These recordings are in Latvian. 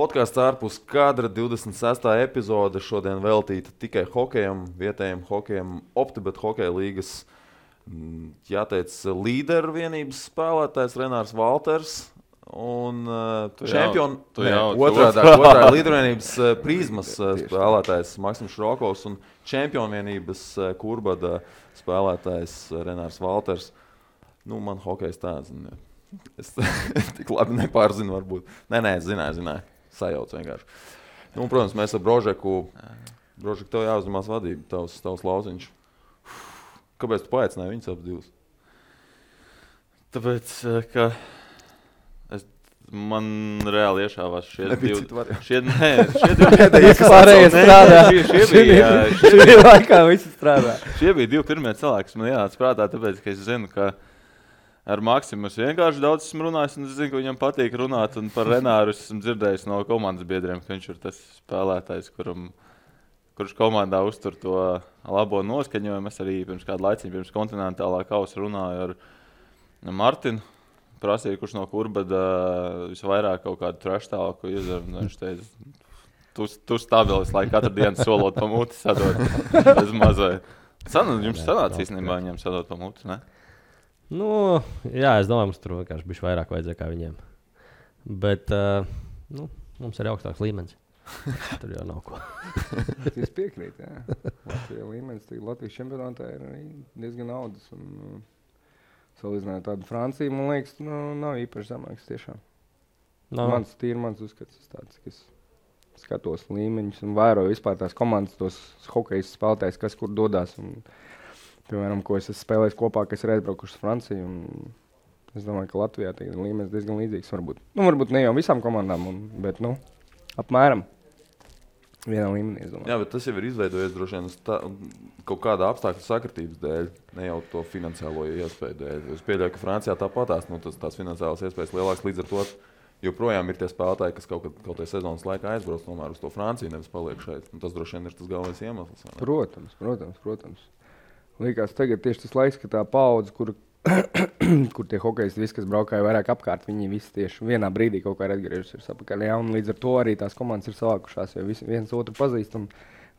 Podkāsts ārpus kadra 26. epizode šodien veltīta tikai hokejam, vietējiem hokejam, OptiBet hokeja līgas, jāteic, līderu vienības spēlētājs Renārs Valters un otrādā līderu vienības Prizmas spēlētājs Maksims Šrokovs un čempionu vienības Kurbada spēlētājs Renārs Valters. Nu, man hokejs tāds, es tik labi nepārzinu varbūt. Nē, zināju. Sajauc vienkārši. Nu, un, protams, mēs ar Brožeku, tev jāuzņemās vadība, tavs lauciņš. Kāpēc tu paaicināji viņus abas divas? Tāpēc, ka man reāli iešāvās šie divi pārējie strādā. Šie bija laikā visi strādā. Šie bija divi pirmie cilvēki, kas man ienāca prātā, tāpēc, ka es zinu, ka ar Maksimu es vienkārši daudz esmu runājis, un es zinu, ka viņam patīk runāt, un par Renāru esmu dzirdējis no komandas biedriem, ka viņš ir tas spēlētājs, kurš komandā uztur to labo noskaņojumu. Es arī pirms kādu laiciņu, pirms kontinentālā kausa runāju ar Martinu, prasīju, kurš no Kurbada visvairāk kaut kādu traštālāku izdara, un viņš teica, tu stabilis, lai katru dienu solot pa muti sadot bez mazai. Jums sanāca īstenībā viņiem sadot pa muti, ne? Nu, jā, es domāju, mums tur vienkārši bišķi vairāk vajadzēja kā viņiem. Bet, mums ir augstāks līmenis. Tur jau nav ko. Es piekrītu, jā. Latvijas līmenis, Latvijas čempionātā ir diezgan naudas. Salīdzinājot tādu Franciju, man liekas, nav īpaši zemāks tiešām. Mans uzskats tāds, ka es skatos līmeņus un vēroju vispār tās komandas, tos hokejas spēlētājs, kas kur dodās. Un, piemēram, ko es spēlēju kopā, kas ir aizbraukuši uz Franciju. Es domāju, ka Latvijā ir līmenis diezgan līdzīgs. Varbūt ne jau visām komandām, bet apmēram vienā līmenī. Jā, bet tas jau ir izveidojies droši vien kaut kāda apstākļu sakritības dēļ, ne jau to finansiālo iespēju dēļ. Es pieļauju, ka Francijā tāpatās tās finansiālās iespējas lielākas, līdz ar to joprojām ir tie spēlētāji, kas kaut kādā sezonas laikā aizbrauc tomēr uz to Franciju, nevis paliek šeit. Un tas droši vien ir tas galvenais iemesls. Protams. Liekas, tagad tieši tas laiks, ka tā paudze, kur tie hokejisti visi, kas braukāja vairāk apkārt, viņi visi tieši vienā brīdī kaut kā ir atgriežusies apakaļ. Ja? Un līdz ar to arī tās komandas ir savākušās, jo viens otru pazīst. Un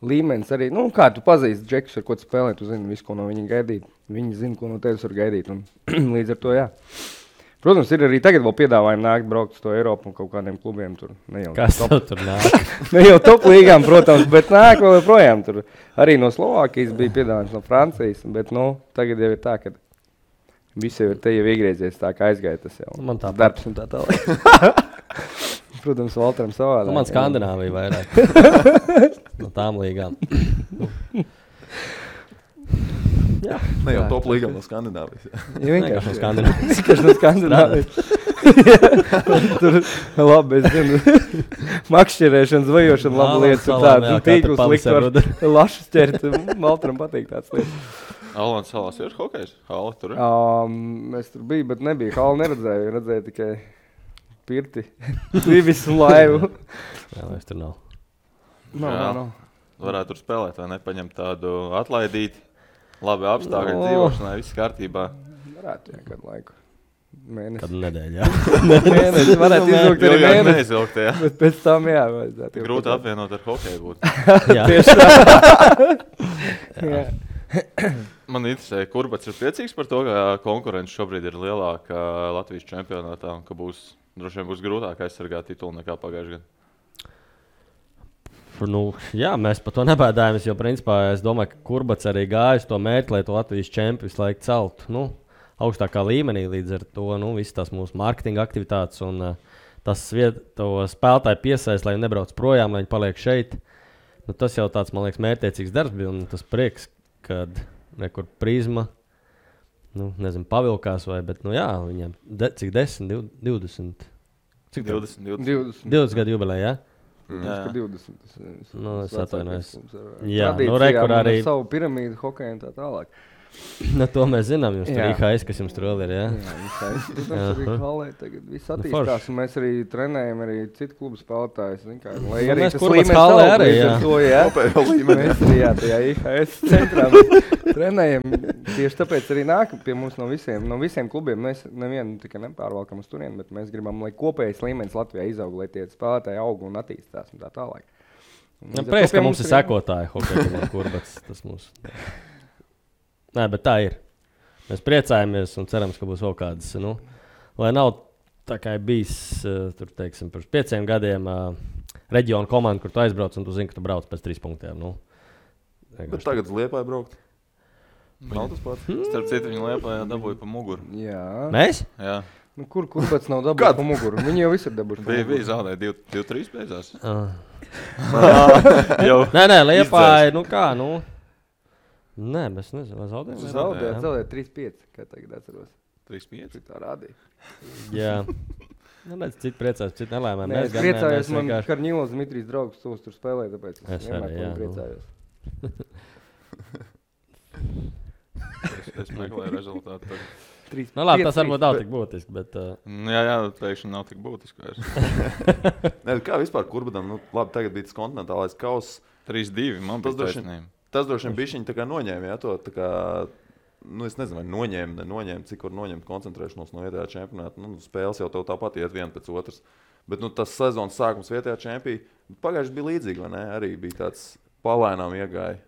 līmenis arī, kā tu pazīsti džekus, ar ko tu spēlē, tu zini visu, ko no viņa gaidīt. Viņi zina, ko no tevis var gaidīt. Un līdz ar to, jā. Protams, ir arī tagad vēl piedāvājumi nākt braukt uz to Eiropu un kaut kādiem klubiem tur. Kas tur nāk? Ne jau top līgām, protams, bet nāk vēl projām tur. Arī no Slovākijas bija piedāvājums, no Francijas, bet tagad jau ir tā, ka visi jau ir te jau iegriezies tā, kā aizgāja tas jau. Man tā darbs un tā tālāk. Protams, Valteram savādāk. Man Skandināvija vairāk. No tām līgām. Jā. Ne jau top līgā no Skandināvijas. Ja vienkārši no Skandināvijas. Vienkārši no Skandināvijas. Tur labi, es zinu. Makšķerēšana, zvajošana, laba lietas un tāda. Tīklus likt var lašas ķert. Valteram patīk tāds lietas. Alans salās ir hokejs? Hala tur ir? Es tur biju, bet nebija. Hala neredzēju. Redzēju tikai pirti. Vivis un laivu. Jā, es tur nav. Nav. Varētu tur spēlēt, vai ne? Paņemt tādu atlaidīti. Labi apstākļi dzīvošanai, viss kārtībā. Varētu, jā, kādu laiku. Mēnesi. Kādu nedēļu, jā. Mēnesi varētu izvilkt arī mēnesi. Neizvilkt, jā. Bet pēc tam, jā, vajadzētu. Grūti apvienot ar hokeju būt. Jā. Tieši tā. Jā. Man interesē, Kurbats ir priecīgs par to, ka konkurence šobrīd ir lielāka Latvijas čempionātā un ka droši vien būs grūtāk aizsargāt titulu nekā pagājušajā gadā. Jā, mēs par to nebēdājamies, jo principā es domāju, ka Kurbats arī gāja uz to mērķi, lai to Latvijas čempi visu laiku celtu augstākā līmenī. Līdz ar to visas tās mūsu mārketinga aktivitātes un tas to spēlētāju piesaist, lai viņi nebrauc projām, lai viņi paliek šeit. Tas jau tāds, man liekas, mērķtiecīgs darbs bija un tas prieks, kad nekur Prizma, pavilkās vai, bet viņiem cik 10, 20? Cik 20? 20 gadu jubilejā, jā? Jā. 20. Es atvainojos. Jā, rekur arī savu piramīdu hokeju un tā tālāk. Nu, to mēs zinām. Jums tur IHS, kas jums tur vēl ir, jā? Jā, IHS. Protams, arī halē tagad viss attīstās. Un mēs arī trenējam arī citu klubu spēlētājus. Lai arī tas līmenis halē arī, jā. To, jā. Mēs arī, jā, tajā IHS centrā trenējam. Tieši tāpēc arī nāk pie mums no visiem klubiem. Mēs nevienu tikai nepārvalkam uz turieni, bet mēs gribam, lai kopējais līmenis Latvijā izaug, lai tie spēlētāji aug un attīstās un tā tālāk. Prieks, ka mums ir sekotāji hokeja kurbats. Tas mums... Nē, bet tā ir. Mēs priecājamies un cerams, ka būs vēl kādas. Nu, lai nav tā kā bijis tur, teiksim, pirms 5 gadiem reģiona komanda, kur tu aizbrauc un tu zini, ka tu brauc pēc 3 punktiem. Nu, bet tagad uz Liepāju braukt. Nav tas pats. Starp citu, viņi Liepājā dabūja pa muguru. Jā. Mēs? Jā. Nu, kurbats nav dabūjis pa muguru? Viņi jau visi ir dabūjuši pa muguru. Bija zaudēja 2-3 beidzās. Nē, Liepāja, nu kā, nu. Nē, mēs nezinām, zaudējām 3-5, kā tagad atceros. 3-5? Tā rādīja. Jā. Nu, mēs citi priecājos, citi nelēmēm. Nē, es priecājos, man Karņilos Dmitrijs draugs tos tur spēlē, tāpēc es vienmēr priecājos. Es meklēju rezultātu. Nu labi, tas varbūt nav tik būtiski, bet... Jā, teikšana nav tik būtiska. Nē, kā vispār kurbatam? Nu, labi, tagad bija tas kontinentālais kauss. 3-2, man bija taisnība. Tas droši vien bišķiņi tā kā noņēma, jā, to tā kā, nu es nezinu, vai noņēma, cik var noņemt koncentrēšanos no vietējā čempionāta. Nu, spēles jau tev tāpat iet viena pēc otras. Bet, nu, tas sezonas sākums vietējā čempī, pagājuši bija līdzīgi, vai ne? Arī bija tāds palēnām iegāja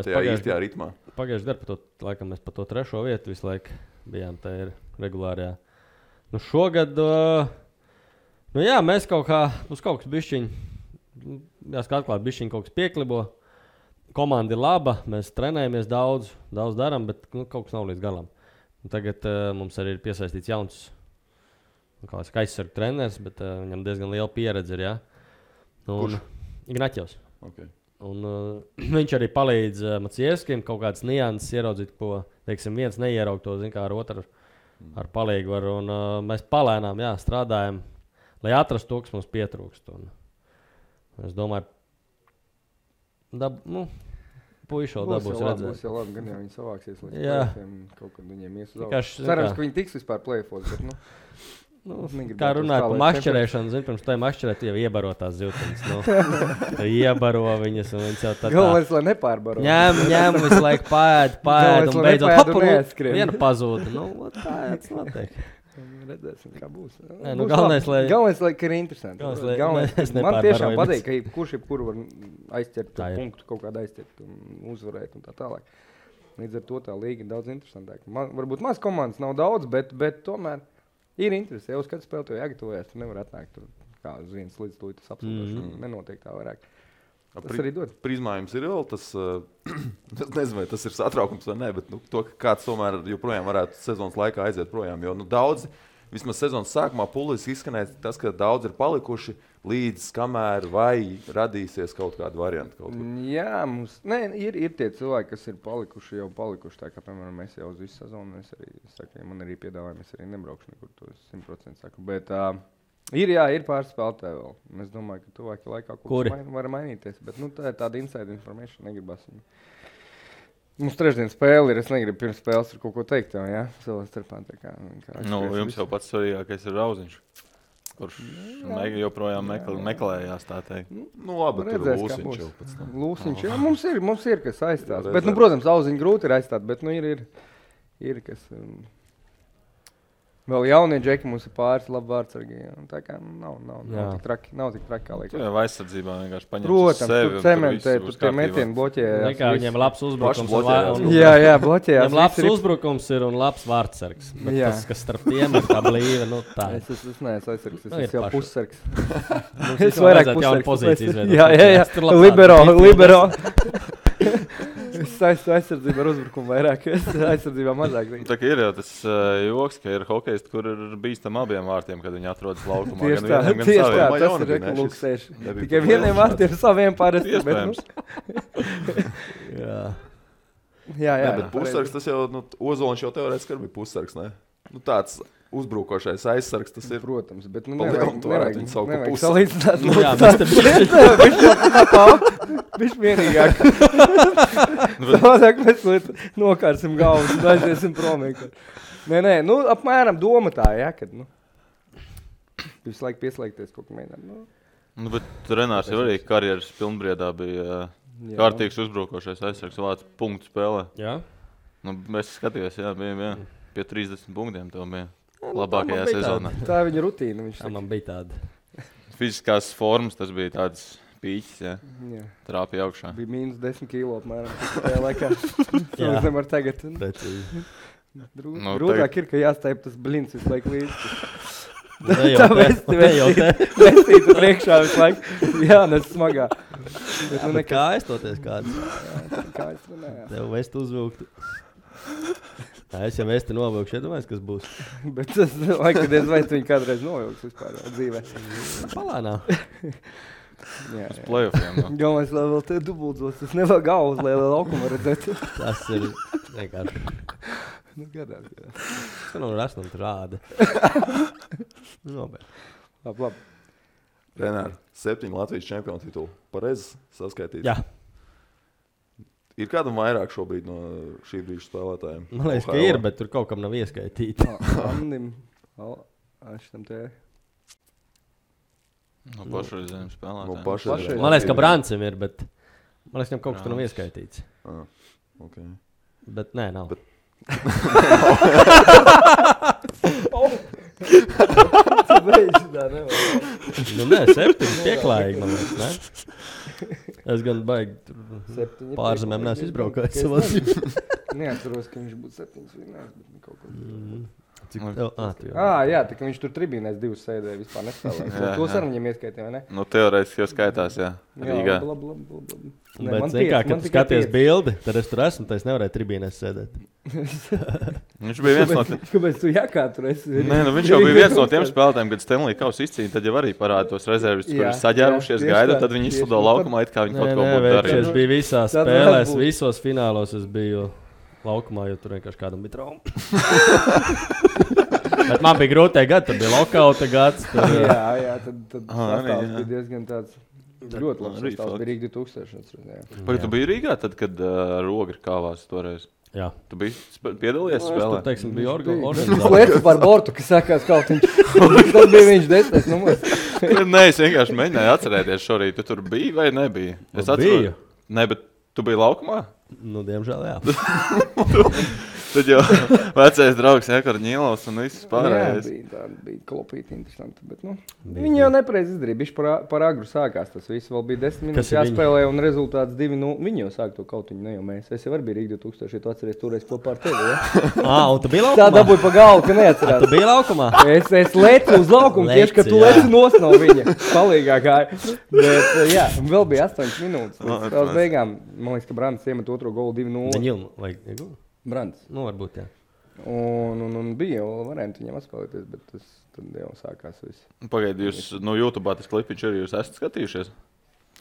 tajā īstajā ritmā. Pagājuši gadu, laikam mēs pa to 3. vietu visu laiku bijām tajā regulārajā. Nu, šogad, nu jā, mēs kaut kas bišķiņi, jāsaka atklāt, bišķiņi kaut kas pieklibo. Komanda ir laba, mēs trenējamies daudz darām, bet kaut kas nav līdz galam. Un tagad mums arī ir piesaistīts jauns aizsargu treneris, bet viņam diezgan liela pieredze ir. Ja? Kurš? Ignaķevs. Okay. Un, viņš arī palīdz Macievskim kaut kādas nianses ieraudzīt, ko teiksim, viens neieraug to kā ar otru ar palīgu var. Un, mēs palēnām strādājam, lai atrastu to, kas mums pietrūkst. Un, es domāju, puiši vēl dabūs redzēt. Būs jau labi, gan jau viņi savāksies līdz play-offiem, kaut kad viņiem ies uz augšu. Cerams, ka viņi tiks vispār play-offos, bet kā runāt par mašķerēšanu, pirms tā mašķerēt, jau iebaro tās zivtiņas. Iebaro viņas un viņas jau tā. Galvenais, lai nepārbaro. Ņem visu laiku pēd un beidzot viena pazūda. Nu, tā jāc notiek. Redzēsim, kā būs. Galvenais, lai ir interesanti. Man tiešām patīk, ka jebkuru var aizķert punktu, kaut kādu aizķert un uzvarēt un tā tālāk. Līdz ar to tā līga ir daudz interesantāk. Varbūt maz komandas nav daudz, bet tomēr ir interesi. Jau uz kādu spēli to jāgatavojas, tu nevar atnākt tur kā uz viens līdz tūlīt tas absolūti nenotiek tā vairāk. Tas arī dod. Prizmā jums ir vēl tas, es nezinu, vai tas ir satraukums vai ne, bet to, ka kāds tomēr joprojām varētu sezonas laikā aiziet projām, jo daudzi, vismaz sezonas sākumā puliski izskanēja tas, ka daudz ir palikuši līdz kamēr vai radīsies kaut kāda varianta. Kaut Jā, mums, ir tie cilvēki, kas ir palikuši, tā kā, piemēram, mēs jau uz visu sezonu, es arī saku, ja man arī piedāvājumi, es arī nebraukšu nekur, to 100% saku, bet... Ir pāris spēlētāji vēl. Es domāju, ka tuvākajā laikā kaut kas var mainīties. Bet tā ir tāda inside information, negribas viņu. Mums trešdien spēle ir, es negribu pirms spēles ar kaut ko teikt tev, jā? Cilvēks starpā tā kā jums jau pats svarīgākais ir Rauziņš, kurš joprojām meklējās, tā teikt. Nu labi, tur Lūsiņš jau pēc tam. Lūsiņš, jā, mums ir kas aizstāt. Bet, protams, Rauziņu grūti ir aizstāt, bet, ir kas... Vēl jaunie džeki mums ir pāris labi vārdsargi. Tā kā nav tik traki kā liekas. Tu jau aizsardzībā vienkārši paņems uz sevi. Protams, tu cementē, tu tie metieni bloķē. Viņiem labs uzbrukums. Jā, bloķējās. Viņiem labs uzbrukums ir un labs vārdsargs. Bet tas, kas starp tiem ir tā blīva, tā. Es neesmu aizsargs, es jau pussargs. Es vairāk pussargs. Jā. Libero. Es saistu aizsardzību ar uzbrukumu vairāk, es aizsardzībā mazāk. Tā kā ir jau tas joks, ka ir hokejisti, kur ir bīstam abiem vārtiem, kad viņi atrodas laukumā. Tieši tā, tas ir lūksēši. Tikai vieniem vārtiem saviem parasti. Iespējams. Jā. Bet pussargs tas jau, Ozoliņš jau teorētiski bija pussargs, ne? Tāds uzbrukošais aizsargs, tas ir. Protams, bet nu Pa lielam tu varētu viņu saukt par nevajag pusi. salīdzināt. Jā, mēs te Viņš vienīgāk. Savādāk mēs nokārsim galvas un aiziesim prom. Nē, nu apmēram doma tā, ja, kad, nu, visu laiku pieslēgties kaut ko mēģināt. Nu, bet Renārs jau arī karjeras pilnbriedā bija kārtīgs uzbrukošais aizsargs vārds punktu spēlē. Jā. Nu, es skatījos, bija pie 30 punktiem tev bija labākajā sezonā. Tā viņa rutīna. Tā man bija tāda. Fiziskās formas tas bija tāds pīķis, Jā. trāpīja augšā. Bija mīnus 10 kilo apmēram. Tajā laikā. Es nevaru tagad. Precīzi. Grūtāk ir, ka jāstaip tas blins visu laiku līdzi. Ne Tā jau te. vestītu priekšā visu laiku. Jā, nes smagā. Bet nu Bet kā aizstoties kāds? Kā es runāju. Tev vest uzvilkt. Es jau vesti novilkšu, iedomājies, kas būs. Bet tas laikam, kad es vai tu viņu kādreiz novilks vispār dzīvē. Palānā. Jā. Uz playoffiem. No. Galvenais, lai vēl te dubuldzos. Tas nevar galvas, lai laukumu redzētu. Tas ir vienkārši. Nu, gadās. Tas nav rasnam rāda. Nobeidz. Labi. Renār, 7 Latvijas čempionu titulu. Pareizi saskaitīt. Jā. Ir kādam vairāk šobrīd no šī brīža spēlētājiem? Man liekas, ka ir, bet tur kaut kam nav ieskaitīti. Andim. Šitam te. No pašreizējiem spēlētājiem. No pašreizējiem. Man liekas, ka Brancim ir, bet man liekas, ka kaut kas tur nav ieskaitīts. Okay. Bet nē, nav. Nu nē, 7 pieklājīgi, man liekas, ne? Es gan baigi pārzemēm neesmu izbraukājis savā dzīvē. Neatceros, ka viņš būtu 7 vinnējis, bet kaut ko. Cik tev? Jā, tā kā viņš tur tribīnēs 2 sēdēja, vispār nespēlēja. Tos ar viņiem ieskaitīja, vai ne? Nu, teorētiski jau skaitās, jā. Rīgā. Labi. Bet, zin kā, kad tu skaties bildi, tad es tur esmu, tad es nevarēju tribīnēs sēdēt. Viņš bija viens no tiem. Kāpēc tu jākā tur esi? Nē, nu viņš jau bija viens no tiem spēlētājiem, kad Stanley Kauss izcīnīja, tad jau arī parāda tos rezervis, kur ir saģērušies, gaida, tad viņi izslido laukumā, it kā viņi kaut ko būtu darījuši. Es biju visās spēlēs, visos finālos es biju laukumā, jo tur vienkārši kādam bija trauma. Bet man bija grūtie gadi, tad bija lokauta gads. Jā, tad sastāvs bija diezgan tāds ļoti labs. Sastāvs bija Rīga 2000. Vai tu biji Rīgā tad, kad Roga kāvās toreiz? Jā. Tu biji piedalījies spēlē? Es tur, teiksim, biju organizācijā. Es lieku par bortu, kas sākās kaut viņš. Tas bija viņš 10. numurs. Nē, es vienkārši mēģināju atcerēties šorīt. Tu tur biji vai nebija? Es biju. Nē, bet tu biji laukumā? Nu, diemžēl, jā. Tad jau vecais draugs Ekar Ņīlovs un viss pārējais. Jā, bija klopīti interesanti, bet viņi jau nepareiz izdarīja. Bišķi par agru sākās tas viss. Vēl bija 10 minūtes jāspēlē un rezultāts 2-0. Viņi jau sāk to kautiņu, ne jau mēs. Es jau arī biju Rīga 2000, ja tu atceries toreiz kopā ar tevi, ja? Un tu biji laukumā? Tā dabūja pa galvu, ka neatcerās. Tu biji laukumā? Es lecu uz laukumu tieši, ka tu leci nos no viņa. Palīgā gāja. Bet, jā, vēl bija 8 minūtes. Tās beigām, man liekas, ka Brants iemet otro golu 2-0. Daņilmu vai Egu? Brants. Nu, varbūt, jā. Un bija jau varianti viņam atspēlēties, bet tas tad jau sākās viss. Pagaidi, jūs no YouTube tas klipiņš arī jūs esat skatījušies?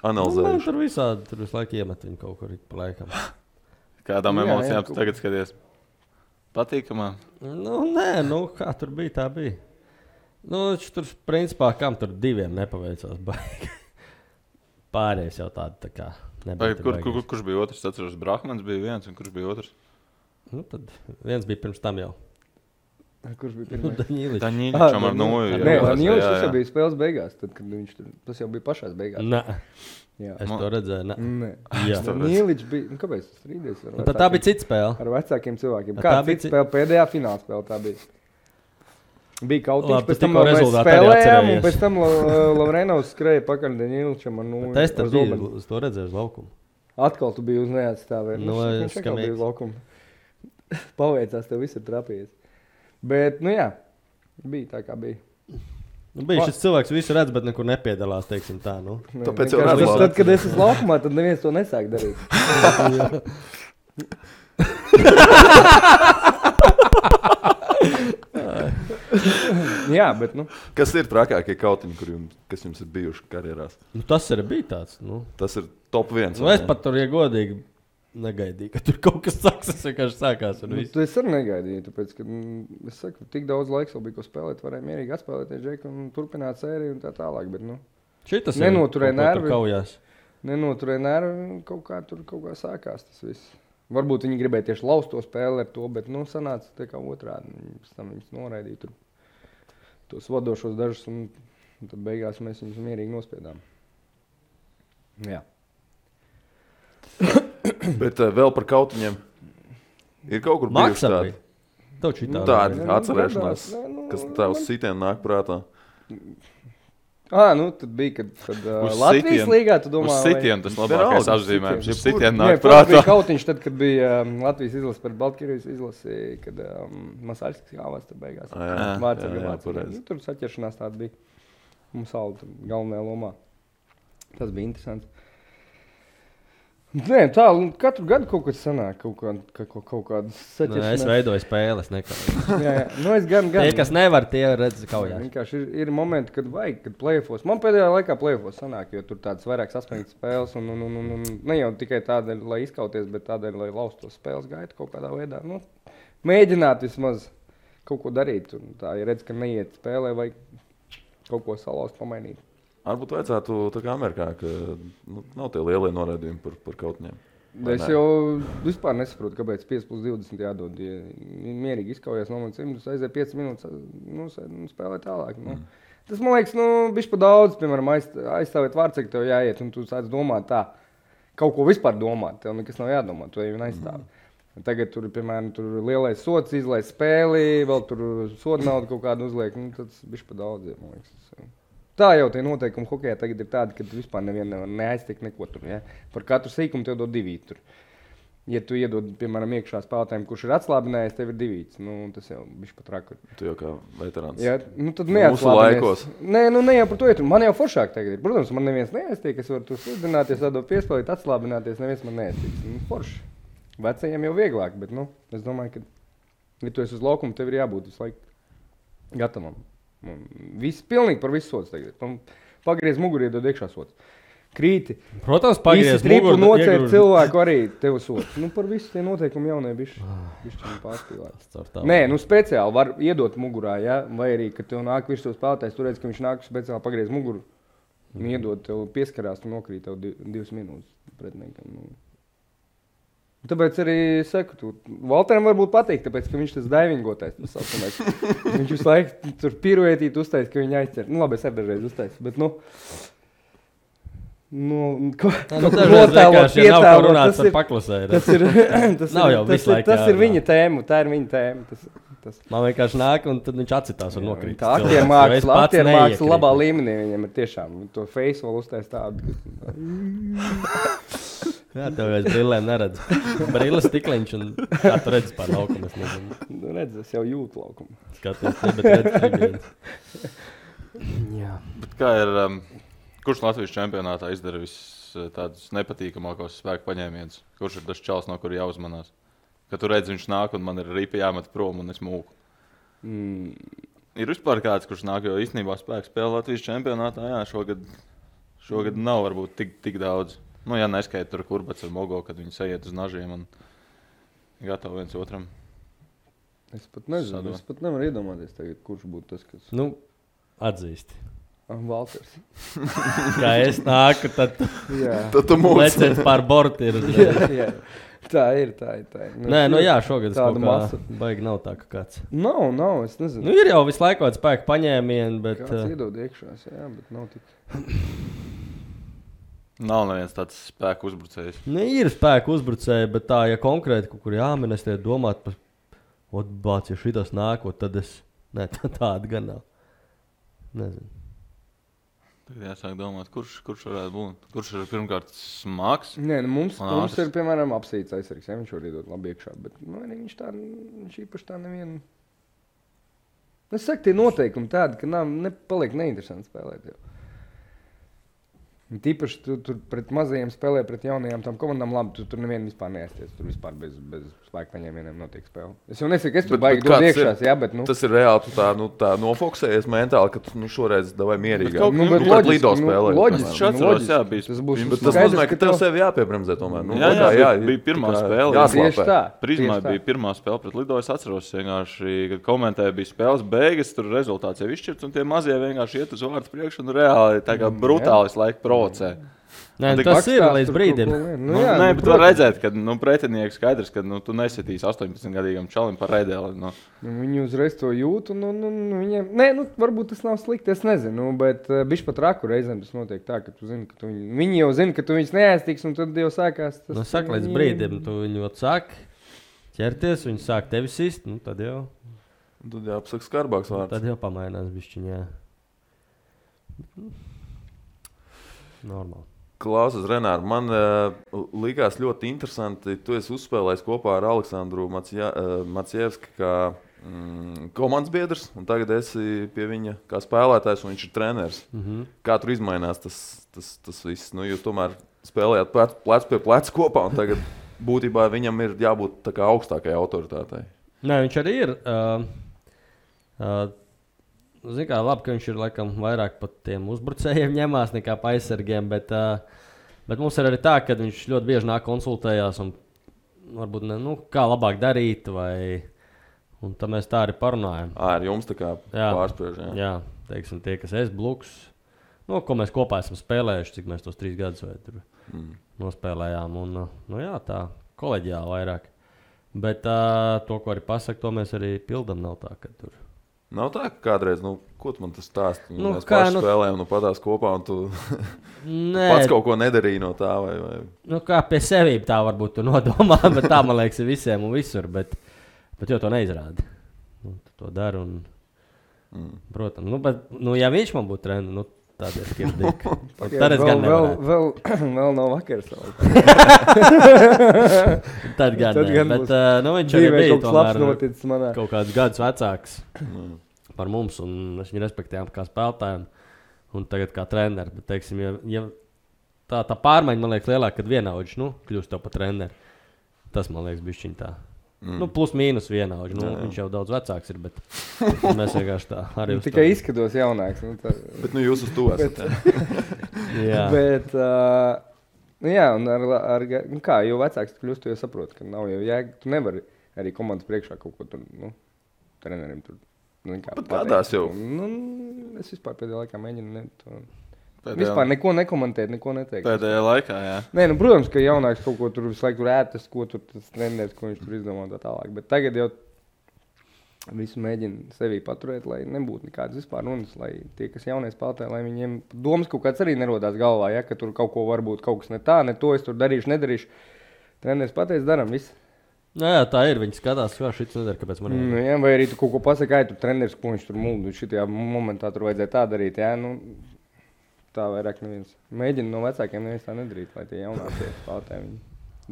Analizējuši. Tur visādi, tur visu laiku iemet viņu kaut kur pa laikam. Kādām emocijām tu tagad skaties? Patīkamā? Nu, nē, kā tur bija, tā bija. Nu, tur, principā, kam tur 2 nepaveicās baigi. Pārējais jau tādi tā kā nebija. Kurš bija otrs? Atceros, Brahmans bija viens un kurš bija otrs? Nu, tad viens bija pirms tam jau. Kurš bija pirmais? Daņīličam ar noju. Nē, Daņīličs jau bija spēles beigās, tad, kad viņš tur, tas jau bija pašās beigās. Nē, jā. Es to redzēju, nē. Jā. Daņīličs bija, kāpēc tas strīdies? Tad tā bija cita spēle. Ar vecākiem cilvēkiem. Kā cita spēle? Pēdējā fināla spēle tā bija. Bija kautiņš, pēc tam mēs spēlējām, un pēc tam Lavrenovs skrēja pakaļ Daņīličam ar noju. Es tad biju, es to redzēju uz laukumu. Atkal tu biji uz neatstāvē. Nu, viņš atkal bija uz laukumu. Paveicās, tev viss ir trapījies. Bet, nu jā, bija tā kā bija. Nu, bija šis cilvēks visu redz, bet nekur nepiedalās, teiksim tā, nu. Tāpēc jau redz. Tad, kad es esmu laukumā, tad neviens to nesāk darīt. Jā, bet, nu. Kas ir trakākie kautiņi, kas jums ir bijuši karjerās? Nu, tas arī bija tāds, nu. Tas ir top 1. Nu, es pat tur, ja godīgi, negaidīju, ka tur kaut kas sāks. Tas vienkārši sākās. Es arī negaidīju, tāpēc, ka es saku, tik daudz laiks vēl bija, ko spēlēt, varēja mierīgi atspēlēties Džeku un turpināt sēriju un tā tālāk. Bet, šitas nenoturēja nervi. Kaujās. Nenoturēja nervi, kaut kā sākās tas viss. Varbūt viņi gribēja tieši laust to spēli ar to, bet sanāca tā kā otrādi. Pēc tam viņus noraidīja tur tos vadošos dažus un tad beigās mēs viņus mierīgi nospiedām. Jā. Bet vēl par kautiņiem. Ir kaut kur bijuši tādi. Tādi atcerēšanās, kas tā uz sitienu nāk prātā. Tad bija, kad Latvijas līgā, tu domā, uz sitienu tas labākais apzīmējums. Uz sitienu nāk prātā. Bija kautiņš tad, kad bija Latvijas izlase pret Baltkrievijas izlasi, kad Masaļskis kāvās tur beigās. Vācija. Tur saķeršanās tāda bija. Mums Alda galvenajā lomā. Tas bija interesants. Nē, tā, katru gadu kaut kas sanāk, kaut kādas saķeršanās. Es veidoju spēles, jā. Es gan. Tie, kas nevar, tie redz kaujās. Vienkārši ir momenti, kad vajag, kad play-offos. Man pēdējā laikā play-offos sanāk, jo tur tādas vairāk saspringtas spēles un ne jau tikai tādēļ, lai izkauties, bet tādēļ, lai laustos spēles gaitu kaut kādā veidā. Mēģināt vismaz kaut ko darīt. Un tā, ja redz, ka neiet spēlē, vajag kaut ko salauzt, pamainīt. Varbūt vajadzētu tā kā Amerikā, ka nav tie lielie noraidījumi par kautiņiem. Es jau vispār nesaprotu, kāpēc 5+20 jādod. Ja mierīgi izkaujās no manis 100, aiziet 5 minūtes, spēlē tālāk. Tas, man liekas, bišķi pa daudz, piemēram, aizstāvēt vārdsargu, tev jāiet, un tu sāc domāt tā, kaut ko vispār domāt, tev nekas nav jādomā, tu jau aizstāvi. Tagad tur, piemēram, lielais sods izlaist spēli, vēl tur soda naudu kaut kādu uzliek, tas bišķi pa daudz, man liekas. Tā jau tie noteikumi hokejā tagad ir tādi, ka tu vispār nevienu nevar neaiztikt neko tur. Ja? Par katru sīkumu tev dod 2 tur. Ja tu iedod, piemēram, iekšā spēlētājiem, kurš ir atslābinājies, tev ir 2. Tas jau bišķi pat raku. Tu jau kā veterāns. Jā, tad neatslābinājies. Ne jau par to iet. Man jau foršāk tagad ir. Protams, man neviens neaiztiek, es varu tu slidināties, tādot piespēlīt, atslābināties, neviens man neaiztiks. Forši. Vecajiem jau vieglāk, bet, es domāju, ka, ja tu esi uz laukumu, tev ir jābūt visu laiku gatavam. Pilnīgi par visu sods tagad. Pagriez muguri, iedod iekšā sods. Krīti. Protams, pagriez muguri. Nocērt cilvēku arī tev sods. Par visu tie noteikumi jaunai bišķi pārspīlēt. Nē, speciāli var iedot mugurā, ja? Vai arī, kad tev nāk virs tos spēlētājs, tu redz, ka viņš nāk speciāli pagriez muguru. Un iedod tev pieskarās, tu nokrīt tev 2 minūtes pretiniekam. Tāpēc arī saku, Valteram varbūt patīk, tāpēc, ka viņš tas daivingotais. Viņš visu laiku tur piruetīt uztais, ka viņi aizķer. Labi, es arī dažreiz uztais, bet notēlot, pietēlot, tas ir viņa tēma, tā ir viņa tēma. Man vienkārši nāk, un tad viņš atsitās un nokrīt. Tā aktiermāksla labā līmenī viņam ir tiešām. To face vēl uztais tādu. Jā, tev aiz brillēm neredz. Brilles stikliņš un kā tu redzi pār laukumu, es nezinu. Es jau jūtu laukumu. Skaties, bet redz tribīnes. Jā. Bet kā ir, kurš Latvijas čempionātā izdara tādus nepatīkamākos spēku paņēmienus? Kurš ir tas čals, no kura jāuzmanās? Kad tu redzi, viņš nāk un man ir ripa jāmet prom un es mūku. Ir vispār kāds, kurš nāk, jo īstenībā spēku spēle Latvijas čempionātā, jā, šogad nav varbūt tik daudz. Ja neskaita tur Kurbats ar Mogo, kad viņi sajiet uz nažiem un gatavi viens otram. Es pat nezinu, es pat nevaru iedomāties tagad, kurš būtu tas, kas... Atzīsti. Valters. Kā es nāku, tad tu mūs. Leciet pār borti ir. Jā. Tā ir. Jā, šogad es kaut kā baigi nav tā, ka kāds. Nav, es nezinu. Ir jau visu laiku kāds spēku paņēmieni, bet... Kāds iedod iekšās, jā, bet nav tik... Nav neviens tāds spēku uzbrucējs. Ir spēku uzbrucēji, bet tā, ja konkrēti kaut kur jāmin, es tiek domāt par, bāc, ja šitas nākot, tad es... Nē, tāda gan nav. Nezinu. Tagad jāsāk domāt, kurš varētu būt. Kurš ir pirmkārt smags? Nē, mums ir, piemēram, apsīts aizsargs, ja viņš var iedot labi iekšā, bet viņš īpaši tā nevienu... Es saku, tie noteikumi tādi, ka paliek neinteresanti spēlēt jau. Tīpaši tu pret mazajiem spēlē, pret jaunajām tām komandām labi, tu tur nevienu vispār neaizties. Tur vispār bez spēka paņēmieniem notiek spēle. Es jau nesaku, es tur baigi dod iekšās, jā, bet Tas ir reāli, tu tā nofokusējies mentāli, ka tu šoreiz davai mierīgāk. Bet pret Lido spēlē. Loģiski, tas būs Tas nozīmē, ka tev sevi jāpiebremzē tomēr. Jā, bija pirmā spēle. Tieši tā. Prizmā bija pirmā spēle pret Lido. Es atceros vienkārši, kad komentēja, bija spēles beigas, tur rezultāts jau izšķirts, un tie mazie vienkārši iet uz vārdu priekšu un reāli tā kā brutāli laika provocē. Nē, tas ir līdz brīdim. Nē, bet var redzēt, ka pretinieks skaidrs, ka tu nesitīs 18-gadīgam čalim par redēli. Viņi uzreiz to jūt, un viņiem, varbūt tas nav slikti, es nezinu, bet bišķi pat raku reizēm tas notiek tā, ka tu zini, ka viņi jau zina, ka tu viņus neaiztiks, un tad jau sākās tas. Saka, līdz brīdim, tu viņu sāk ķerties, viņi sāk tevi sist, tad jau. Tad jau apsaka skarbāks vārds. Tad jau pamainās bišķiņ, jā. Normāli. Klausies, Renār, man likās ļoti interesanti. Tu esi uzspēlējis kopā ar Aleksandru Macievski kā komandas biedrs, un tagad esi pie viņa kā spēlētājs, un viņš ir treneris. Kā tur izmainās tas viss? Jūs tomēr spēlējāt plec pie pleca kopā, un tagad būtībā viņam ir jābūt tā kā augstākajai autoritātei. Nē, viņš arī ir. Zini kā, labi, ka viņš ir laikam vairāk pat tiem uzbrucējiem ņemās nekā pa aizsargiem, bet mums ir arī tā, ka viņš ļoti bieži nāk konsultējās un varbūt kā labāk darīt, un tad mēs tā arī parunājam. Ar jums tā kā pārspriež, jā. Jā, teiksim, tie, kas Bluks, ko mēs kopā esam spēlējuši, cik mēs tos 3 gadus vai tur nospēlējām, un jā, tā koleģiāli vairāk. Bet to, ko arī pasaka, to mēs arī pildam, nav tā, ka tur. Nav tā, ka kādreiz, ko tu man tas stāsti? Mēs paši spēlējam, patās kopā, un tu pats kaut ko nedarīji no tā, vai? Kā pie sevīm tā varbūt tu nodomā, bet tā, man liekas, ir visiem un visur, bet jau to neizrādi. Tu to dari, un, protams, bet, ja viņš man būtu treneris, tad ir skirdīgi. Tad es gan nevarētu. Vēl nav vakars. Tad gan ne, bet viņš arī bija tomēr kaut kādus gadus vecāks par mums, un es viņu respektējām kā spēlētājiem, un tagad kā treneri. Bet, teiksim, ja tā pārmaiņa, man liekas, lielāka, kad vienaudži, kļūst tev par treneri. Tas, man liekas, bišķiņ tā. Plus mīnus vienaudži. Viņš jau daudz vecāks ir, bet mēs vienkārši tā arī uz to. Tikai izskatos jaunāks. Bet jūs uz to esat. Jā. Bet, jā, un kā, jo vecāks tu kļūst, tu jau saproti, ka nav jau jēga. Tu nevari arī komandas priekšā kaut ko tur, trenerim tur. Bet kādās jau? Es vispār pēdējā laikā mēģinu vispār neko nekomentēt, neko neteikt. Pēdējā laikā, jā. Nē, protams, ka jaunāks kaut ko tur visu laiku ētas, ko tur tas treneris, ko viņš tur izdomā tā tālāk. Bet tagad jau visu mēģina sevī paturēt, lai nebūtu nekādas vispār runas, lai tie, kas jaunie spēlētāji, lai viņiem domas kaut kāds arī nerodās galvā, ja, ka tur kaut ko varbūt kaut kas ne tā, ne to, es tur darīšu, nedarīšu. Treneris pateic, daram visu. Jā, tā ir. Viņi skatās, kā šis nedara, kāpēc man ir. Jā, vai arī tu kaut ko pasaki, tur treneris, ko viņš tur muldu, šitajā momentā tur vajadzēja tā darīt, jā, tā vairāk neviens. Mēģina no vecākiem neviens tā nedarīt, lai tie jaunākie spēlētāji viņi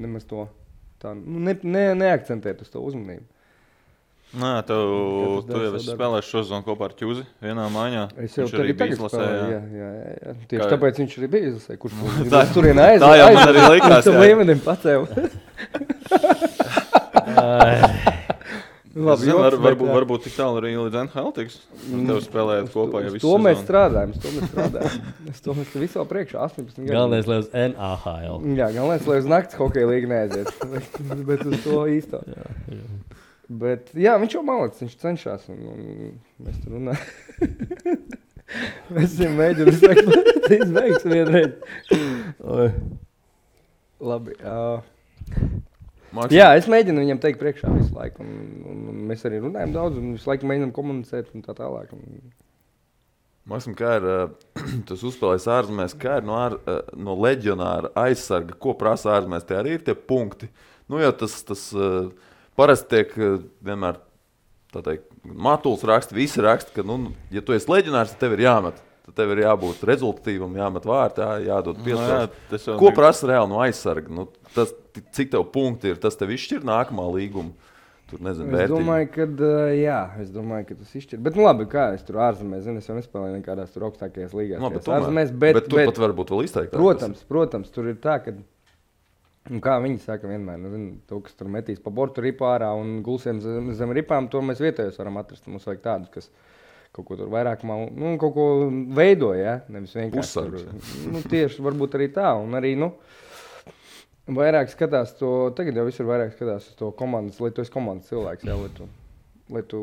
nemaz to tā, neakcentēt uz to uzmanību. Nē, tu jau esi spēlējis šo sezonu kopā ar Ķuzi vienā maiņā. Es jau tagad spēlēju, jā. Tieši tāpēc viņš arī bija izlasē, kurš turienē aiziet. Tā jau man arī likās, jā. Līmenim pacēla. Labi, varbūt tik tālu arī līdz NHL tiks. Tev spēlējāt kopā jau visu sezonu. To mēs strādājam. Es to mēs visu vēl priekšā 18 gadu. Galvenais, lai uz NHL. Jā, galvenais, lai uz nakts hokeja līga neaiziet. Bet uz to īsto. Jā. Bet jā, viņš jau malacis, viņš cenšas. Un mēs tur runājam. Mēs viņam mēģinām izbeigts vienreiz. Labi. Jā, es mēģinu viņam teikt priekšā visu laiku, un mēs arī runājam daudz, un visu laiku mēģinām komunicēt un tā tālāk. Maksim, kā ir, tas uzspēlējis ārzemēs, kā ir no leģionāra aizsarga, ko prasa ārzemēs, tie arī ir tie punkti. Jo tas parasti tiek vienmēr, tā teikt, Matuls raksta, visi raksta, ka, ja tu esi leģionārs, tad tev ir jāmet. Tad tev ir jābūt rezultatīvam, jāmet vārtā, jādod piespēles. Ko prasa reāli no aizsarga? Cik tev punkti ir, tas tev izšķir nākamā līguma tur nezinu, Es vērtīgi. domāju, ka tas izšķir. Bet, nu labi, kā es tur ārzemēs, es jau nespēlēju nekādās tur augstākajās līgās. No, bet ārzemēs, bet tur pat varbūt vēl izteiktāk. Protams, tur ir tā, ka, kā viņi saka vienmēr, to, kas tur metīs pa bortu ripu ārā un gulsiem zem ripām, to mēs vietējos varam atrast. Mums vajag tādus, kas kaut ko tur vairāk, kaut ko veidoja, ja? Nevis vienkārši tur. Tieši varbūt arī tā, un arī, vairāk skatās to, tagad jau visur vairāk skatās uz to komandas, lai tu esi komandas cilvēks, jā, lai tu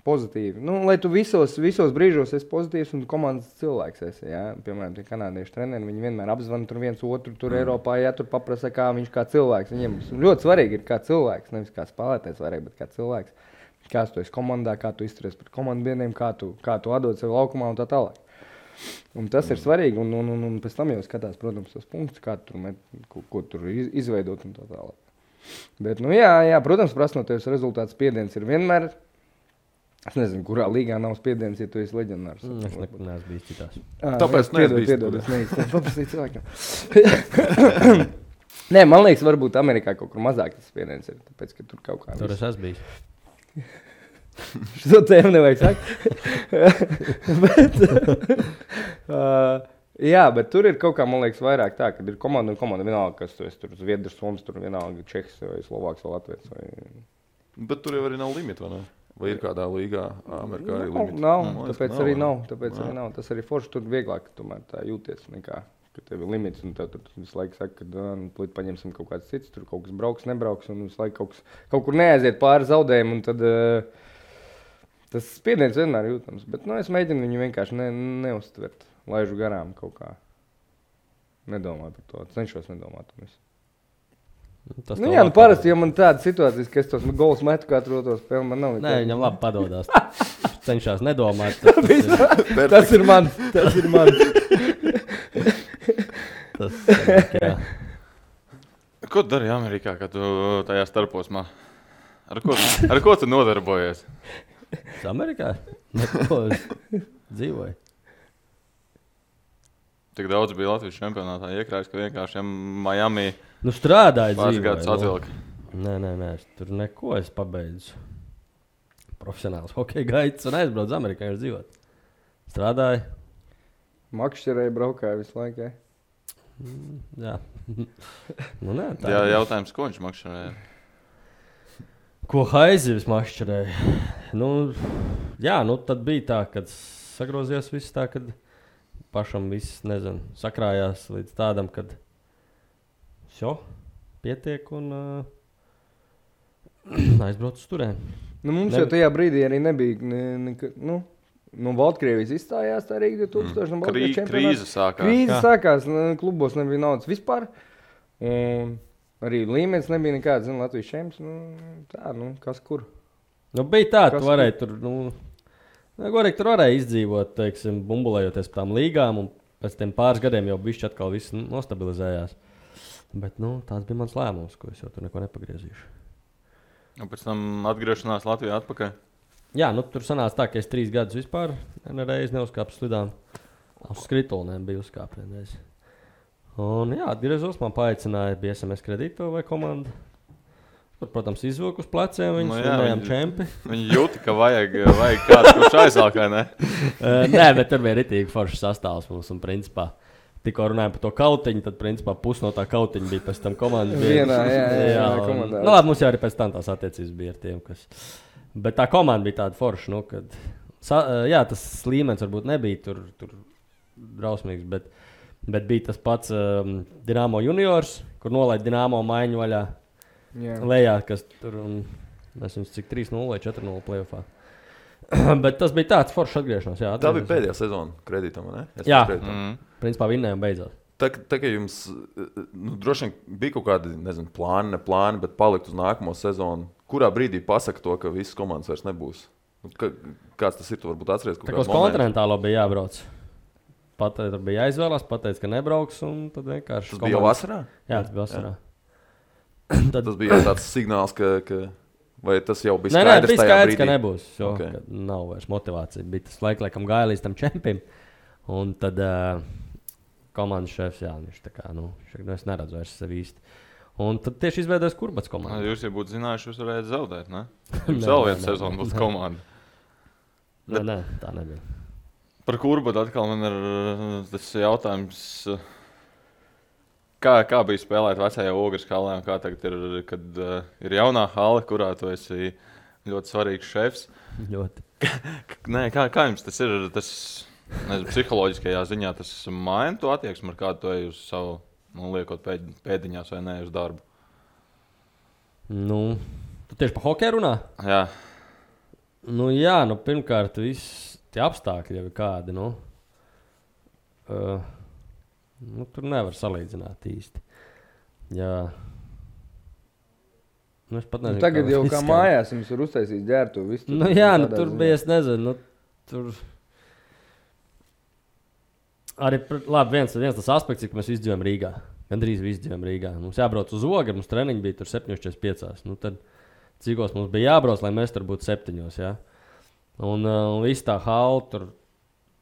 pozitīvi, lai tu visos brīžos esi pozitīvs un komandas cilvēks esi, jā. Piemēram, tie kanādieši treneri, viņi vienmēr apzvana tur viens otru, tur Eiropā, jā, tur paprasa, kā viņš kā cilvēks. Viņiem ļoti svarīgi ir kā cilvēks, nevis kā spēlētājs vairāk, bet kā cilvēks. Kā tu esi komandā, kā tu izturies pret komandu biedriem, kā tu atdod sevi laukumā un tā tālāk. Un tas ir svarīgi, un pēc tam jau skatās, protams, tos punktus, kā tur ko tur izveidot un tā tālāk. Bet, jā, protams, prasa no tevis rezultāts spiediens ir vienmēr. Es nezinu, kurā līgā nav spiediens, ja tu esi leģendārs. Es neesmu bijis citās. Tāpēc piedod, es neizstāstu paprasīt cilvēkam. Nē, man liekas, varbūt Amerikā kaut kur mazāk tas spiediens ir, tāpēc, ka tur kaut kā Tur es esmu bijis. Šo tēmu nevajag sakt. Jā, bet tur ir kaut kā, man liekas, vairāk tā, kad ir komanda un komanda vienalga, kas tu esi tur Zviedrs, Soms, tur vienalga Čehs vai Slovāks vai Latvijas. Bet tur jau arī nav limita, vai ne? Vai ir kādā līgā Amerikā arī limita? Nav, tāpēc arī nav. Tas arī forši tur vieglāk tomēr tā jūties nekā, ka tev ir limits un tev visu laiku saka, ka plīt paņemsim kaut kāds cits, tur kaut kas brauks, nebrauks un visu laiku kaut kur neaiziet pāri zaudējumu un tad tas spiediens vienmēr jūtams. Bet es mēģinu viņu vienkārši neuztvert, laižu garām kaut kā. Nedomāju par to, cenšos nedomāt. Parasti, ja man tāda situācijas, ka es tos gols metu katru otro spēli, man nav. Nē, viņam labi padodās. Cenšās nedomāt. Tas ir mans. Jā. Ko tu dari Amerikā, kad tu tajā starposmā? Ar ko tu nodarbojies? Es Amerikā? Neko, es dzīvoju. Tik daudz bija Latvijas čempionātā iekrājis, ka vienkārši Miami strādāju pāris gadus atvilka. Nē, es tur neko es pabeidzu. Profesionāls hokeja gaids un aizbraucu Amerikā, viņš dzīvot. Strādāju. Makšķerēji braukāja visu laiku, jā? Jā. Nē, tā Jā, jautājums, ko viņš makšķerēja? Ko haizivis makšķerēja? Tad bija tā, kad sagrozījās viss tā, kad pašam viss, sakrājās līdz tādam, kad pietiek un aizbrauc uz turēm. Mums jau tajā brīdī arī nebija, Baltkrievijas izstājās tā Rīga 2000 Krīze sākās. Krīze sākās, klubos nebija naudas vispār. Un arī līmenis nebija nekāds, Latvijas čempions, kas kur. Bija tā, tu varēji tur, tur varēja izdzīvot, teiksim, bumbulējoties par tām līgām, un pēc tiem pāris gadiem jau bišķi atkal viss nostabilizējās. Bet, tāds bija mans lēmums, ko es jau tur neko nepagriezīšu. Un pēc tam atgriešanās Latvijā atpakaļ? Jā, tur sanāca tā, ka es 3 gadus vispār nereiz neuzkāpu slidām. Uz skritulnēm bija uzkāpienreiz. Un jā, atgriezos, man paaicināja bija SMS kredīto vai komanda. Tur, protams, izvilku uz pleciem, viņus runājām čempi. Viņi jūti, ka vajag kāds, kurš aizvalkā, ne? Nē, bet tur bija ritīgi foršs sastāvs mums un principā. Tikko runājām par to kautiņu, tad principā pus no tā kautiņa bija pēc tam komandas. Jā, komandā. Labi, mums jau arī pēc tam tās attiecības bija ar tiem, kas... Bet tā komanda bija tāda forša, kad... tas līmenis varbūt nebija tur drausmīgs, bet bija tas pats Dinamo juniors, kur nolaid Dinamo maiņu vaļā. Lejā, kas tur, es viņus cik 3-0 vai 4-0 playoffā. Bet tas bija tāds foršs atgriešanās. Jā, tā bija pēdējā sezona kredītam, ne? Jā, principā vinnējām beidzot. Tā kā jums, droši vien bija kaut kādi, plāni, bet palikt uz nākamo sezonu, kurā brīdī pasaka to, ka visas komandas vairs nebūs? Kāds tas ir, tu varbūt atceries kaut kādu momentu? Tā kā uz kontinentālo bija jābrauc. Tur bija jāizvēlās, pateica, ka nebrauks, un tad vienkārši... Tas bija jau vasarā? Jā, tas bija vasarā. Tad... Tas bija tāds signāls, ka vai tas jau bija skaidrs tajā brīdī? Nē, bija skaidrs, ka nebūs, ka nav vairs motivācija. Bija tas laikam gāja līdz tam čempim, un tad komandas šefs, viņš tā kā, es neredzu vairs sevi īsti. Un tad tieši izveidojas Kurbats komanda. Jūs jau būtu zinājuši, jūs varētu zaudēt, ne? Jums vēl viena sezona būs komanda. Nē, tā nebija. Par Kurbatu atkal man ir tas jautājums, kā bija spēlēt vecajā Ogres halē un kā tagad ir, kad ir jaunā hale, kurā tu esi ļoti svarīgs šefs. Ļoti. Nē, kā jums tas ir, psiholoģiskajā ziņā tas maina to attieksmi, ar kādu tu ej uz savu, liekot pēdiņās vai ne uz darbu? Tu tieši par hokeju runā? Jā. Jā, pirmkārt, viss tie apstākļi jau ir kādi, tur nevar salīdzināt īsti. Jā. Es pat nezinu, tagad jau kā mājās jums ir uztaisījis ģērtu visu. Tur bija, es nezinu, tur... Arī, labi, viens tas aspekts, ka mēs izdzīvojam Rīgā. Gandrīz visi izdzīvojam Rīgā. Mums jābrauc uz Ogri, mums treniņi bija tur 7:45. Tad cikos mums bija jābrauc, lai mēs tur būtu 7, ja? Un viss tā hala tur,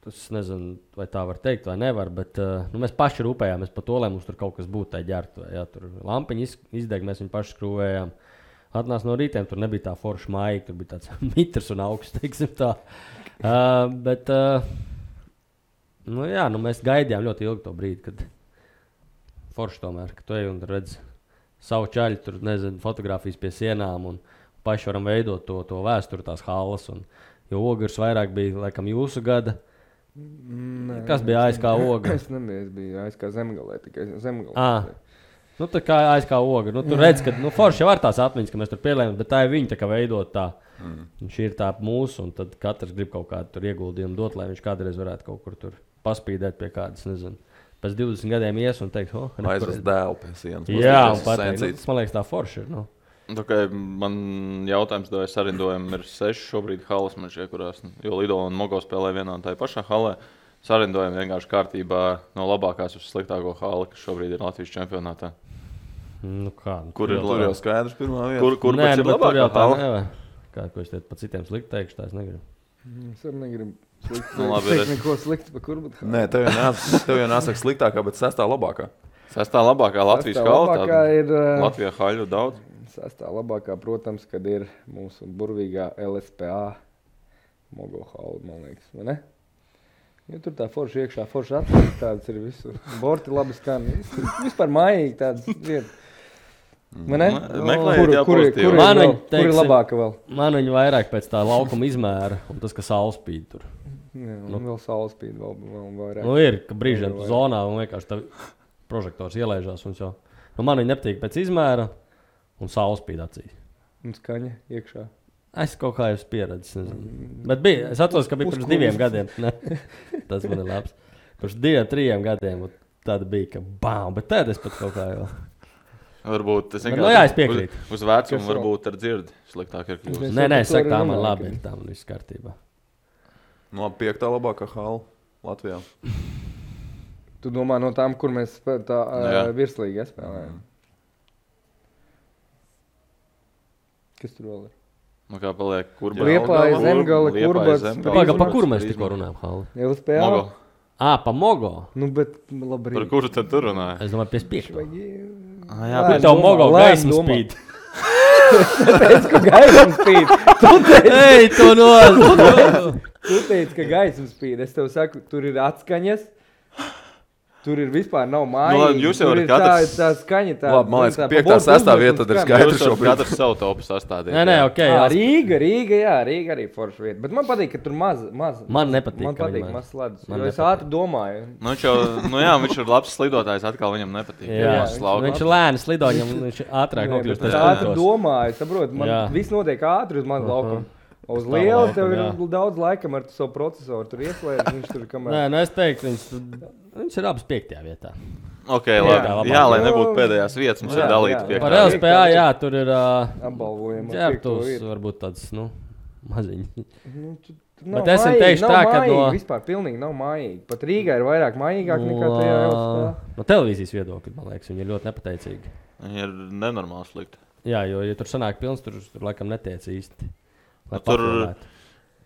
es nezinu, vai tā var teikt vai nevar, bet mēs paši rūpējāmies par to, lai mums tur kaut kas būtu tā ģērtuvē. Ja? Tur lampiņi izdeg, mēs viņu paši skrūvējām. Atnāc no rītiem, tur nebija tā forša maija, tur bija tāds mitrs un augsts, teiksim tā. Bet, mēs gaidījām ļoti ilgi to brīdi, kad forši tomēr, ka tu ej un redz savu čaļu, tur, nezinu, fotografijas pie sienām un paši varam veidot to vēsturi, tās halas. Jo Ogres vairāk bija, laikam, jūsu gada. Kas bija ASK Ogra? Es nebiju, es biju ASK Zemgalē, tikai Zemgalē. Tā kā ASK Ogra. Tu redz, ka forši jau var tās atmiņas, ka mēs tur pielējam, bet tā ir viņa tā kā veidot tā. Šī ir tā mūsu, un tad katrs grib kaut kādu tur ieguldījumu dot, lai viņš kādreiz varētu kaut kur tur paspīdēt pie kādas, nezinu. Pēc 20 gadiem ies un teikt, aizvest dēlu pie sienas. Jā, un pateikt, man liekas tā forši ir, Man jautājums, vai sarindojumi ir 6 šobrīd halas, man šie, kurās, jo Lido un Mogo spēlē vienā un tā pašā halē. Sarindojumi vienkārši kārtībā no labākās uz sliktāko hali, kas šobrīd ir Latvijas čempionātā. Kur ir jau skaidrs pirmā vieta? Kur ir labākā hala? Kā, ko es pa citiem slikti teikšu, tā es negribu. Es arī negribu teikt neko slikti par Kurbatu. Nē, tev jau nāsaka sliktākā, bet 6. labākā. 6. labākā Latvijas hala? Ir Latvijā haļu daudz. 6. labākā, protams, kad ir mūsu burvīgā LSPA Mogo hala, man liekas, vai ne? Jo tur tā forša iekšā, forša atpakaļ, tādas ir visu. Borti labi skan, vispār mājīgi tādas vietas. Man ne? Kur ir labāka vēl? Man viņa vairāk pēc tā laukuma izmēra un tas, ka saule spīd tur. Jā, vēl saule spīd vēl vairāk. Ir, ka brīžiem tu zonā un vienkārši tā prožektors ielaižās un jau. Man viņa nepatīk pēc izmēra un saule spīd acīs. Un skaņa iekšā. Es kaut kā jau pieredzis. Bet es atceros, ka bija pirms 2 gadiem. Tas man ir labs. Pirms 2-3 gadiem tāda bija, ka bām, bet tad es pat kaut kā jau. Varbūt tas es piekrītu. Uz vecumu varbūt ar dzirdi sliktāk ir kļūst. Nē, es saku, tā man labi ir, tā man viss kārtībā. 5. labākā hala Latvijā. Tu domā no tām, kur mēs tā virslīgi spēlējam? Kas tur vēl ir? Kā paliek? Liepāja, Zemgale, Kurbats. Pa kur mēs tikko runājam, Hali? LSPA? Mogo. Pa Mogo? Bet labi. Par kuru tad tur runāja? Es domāju, 55. Jā, bet tev Mogo gaismu spīd. Tu teici, ka gaismu spīd. Tu teici, ka gaismu spīd. Es tev saku, tur ir atskaņas. Tur ir vispār nav mājīgi. Jūs jau varat katrs... tā skaņa tā... Labi, man liekas, ka 5. 6. vieta tad ir skaidrs šobrīd. Katrs savu topu sastādīt. Nē, ok. Rīga arī forša vieta. Bet man patīk, ka tur maz. Man nepatīk, man patīk maz sledus. Jo es ātri domāju. Viņš ir labs slidotājs, atkal viņam nepatīk. Viņš ir lēni slido, viņš ātrāk nokļūst. Es ātri domāju, saprot, man viss notiek ātri uz manu laukumu. Uz lielu tev ir daudz laikam ar savu procesoru. Tur ieslēdz, viņš tur kamēr... Nē, es teiktu, viņš ir abas 5. vietā. Ok, labi. Jā, lai nebūtu pēdējās vietas, mums ir dalīta 5. Par LSPA, jā, tur ir ģērbtuvs, varbūt tāds, maziņi. Bet es teikšu tā, ka vispār pilnīgi nav mājīgi. Pat Rīgā ir vairāk mājīgāk nekā tajā LSPA. No televīzijas viedokļa, man liekas, viņi ir ļoti nepateicīgi. Viņi ir nenormāli slikti. Jā, jo, ja tur sanāk pilns, tur laikam netiec īsti.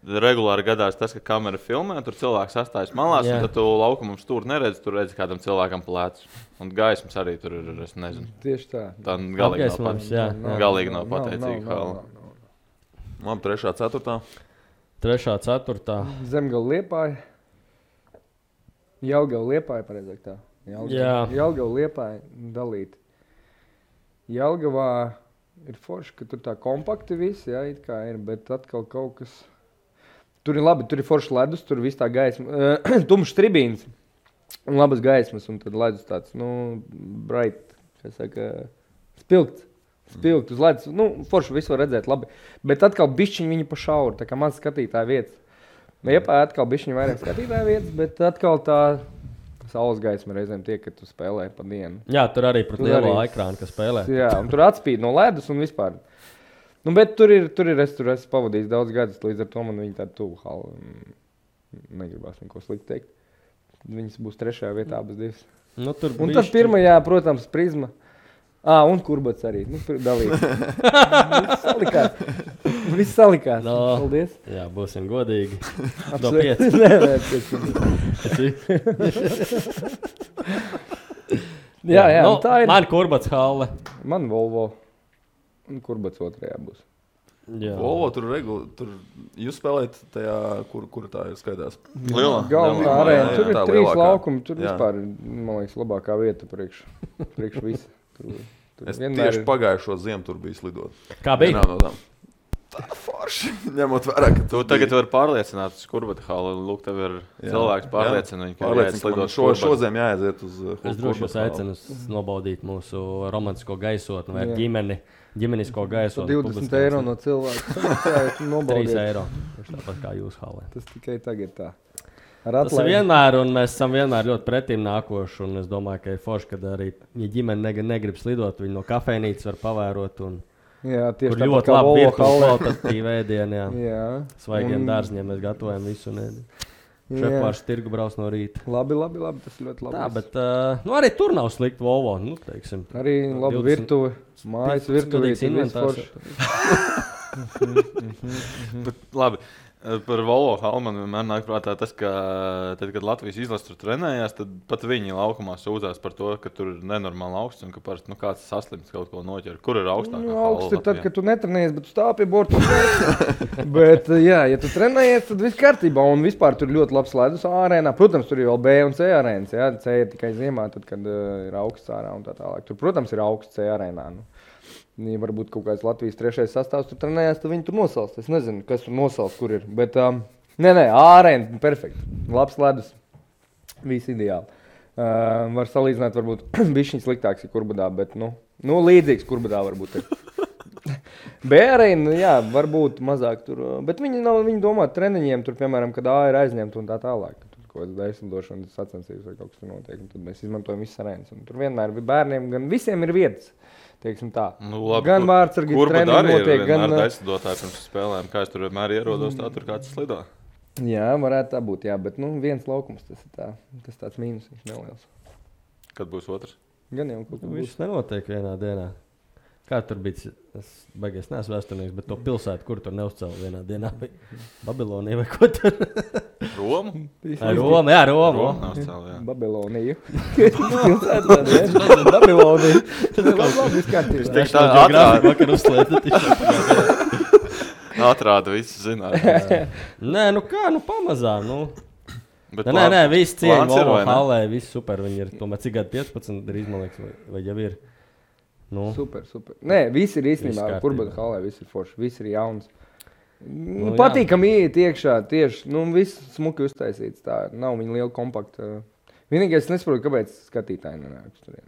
regulāri gadās tas, ka kamera filmē, tur cilvēks sastājas malās, un tad tu laukumam stūri neredzi, tur redzi kādam cilvēkam plēcus. Un gaismas arī tur ir, es nezinu. Tieši tā. Tā galīgi nav pateicīga hala. Labi, 3. 4. 3. 4. Zemgala Liepāja. Jelgava Liepāja, pareizāk tā. Jelgava Liepāja dalīt. Jelgavā ir forši, ka tur tā kompakti visi, jā, it kā ir, bet atkal kaut kas... Tur ir labi, tur ir forši ledus, tur viss tā gaisma, tumšs tribīns un labas gaismas, un tad ledus tāds, bright, kā saka, spilgts uz ledus. Forši visu var redzēt labi, bet atkal bišķiņi viņi pa šauru, tā kā maz skatītāja vietas. Liepāja atkal bišķiņi vairāk skatītāja vietas, bet atkal tā saules gaisma reizēm tiek, kad tu spēlē pa dienu. Jā, tur arī pret lielo ekrānu, kas spēlē. Jā, un tur atspīd no ledus un vispār. Bet tur es pavadīju daudz gadus, līdz ar to man viņa tāda tuvu hala. Negribās neko slikti teikt. Viņas būs 3. vietā, abas divas. Un tas 1. protams, Prizma. Un Kurbats arī. Dalīt. Viss salikās. Paldies. Jā, būsim godīgi. Do 5. Nē, 5. Jā, tā ir. Man Kurbats halle. Man Volvo. Un Kurbats 2. būs. Jā. Volvo tur jūs spēlējat tajā, kur tā ir skaitās? Galvenā arēna. Tur ir 3 laukumi. Tur vispār, man liekas, labākā vieta priekš visa. Es tieši pagājušo ziemu tur biju slidot. Kā bija? Tā forši, ņemot vērā, ka tu tagad vari pārliecināt uz Kurbata halu. Lūk, tev ir cilvēks pārliecina viņu, ka jāiet slidot šodien jāaiziet uz Kurbata halu. Es droši jūs aicinu nobaudīt mūsu romantisko gaisotni vai ģimenisko gaisotni. 20 eiro no cilvēka. 3 eiro. Tāpat kā jūs halē. Tas tikai tagad tā. Tas ir vienmēr, un mēs esam vienmēr ļoti pretīm nākoši. Un es domāju, ka ir forši, kad arī ģimene negrib slidot. Viņi no kafejnīcas var pavērot. Jā, tieši tā ļoti labi virtuāli ēdieni. Svaigiem dārzņiem mēs gatavojam visu. Šefpārs tirgu brauc no rīta. Labi, tas ir ļoti labi. Tā, bet arī tur nav slikti Volvo. Teiksim, arī labi virtuve, mājas virtuvītes inventārs. Labi. Par Volvo halu man vienmēr nāk prātā tas, ka tad, kad Latvijas izlase tur trenējās, tad pat viņi laukumā sūdzās par to, ka tur ir nenormāli augsts un ka parasti kāds saslims kaut ko noķer. Kur ir augstākā hala? Augsts ir tad, kad tu netrenējies, bet tu stāv pie borta. Bet, ja tu trenējies, tad viss kārtībā un vispār tur ļoti labs ledus arēnā. Protams, tur ir vēl B un C arēnas. C ir tikai ziemā, tad, kad ir augsts ārā un tā tālāk. Tur, protams, ir augsts C arēnā. Ja varbūt kaut kāds Latvijas 3. sastāvs tur trenējās, tad viņi tur nosalst. Es nezinu, kas tur nosalst, kur ir. Bet, ārēna, perfekti. Labs ledus. Viss ideāli. Var salīdzināt, varbūt bišķiņ sliktāks ir Kurbadā, bet, līdzīgs Kurbadā varbūt ir. B-arēna, jā, varbūt mazāk tur. Bet viņi domā treniņiem, tur, piemēram, kad A ir aizņemta un tā tālāk. Tur kaut kāds daislidošanas sacensības vai kaut kas tur notiek. Un tad mēs izmantojam visas arēnas. Un tur vienmēr bērniem, gan visiem ir vietas. Teiksim tā. Labi, gan vārdsargi treniņi notiek, gan... Kurba daislidotāji pirms spēlēm, kā es tur vienmēr ierodos, tā tur kāds slido. Jā, varētu tā būt, jā, bet viens laukums, tas tāds mīnus, viņš neliels. Kad būs otrs? Gan jau kaut kā būs. Viss nenotiek vienā dienā. Kā tur bija, es baigies neesmu vēsturnieks, bet to pilsētu, kur tur neuzcēla vienā dienā, bija Babilonija vai ko tur? Romu? Roma, jā, Roma. Babiloniju. Pilsētu tāda, jā. Babiloniju. Tas ir labi izkārtībā. Es teikšu tā grāfiku vakar uzslēta. Atrāda visu zināt. Nē, pamazām, Nē, viss cieņa Volvo halē, viss super, viņi ir tomēr cik gadu 15 drīz, man liekas, vai jau ir. Super. Nē, viss ir īstenībā, Kurbata halē, viss ir forši, viss ir jauns. Patīkam iet iekšā, tieši, viss smuki uztaisīts, tā nav viņa liela kompakta. Vienīgais, es nesaprotu, kāpēc skatītāji nenāk uz turien.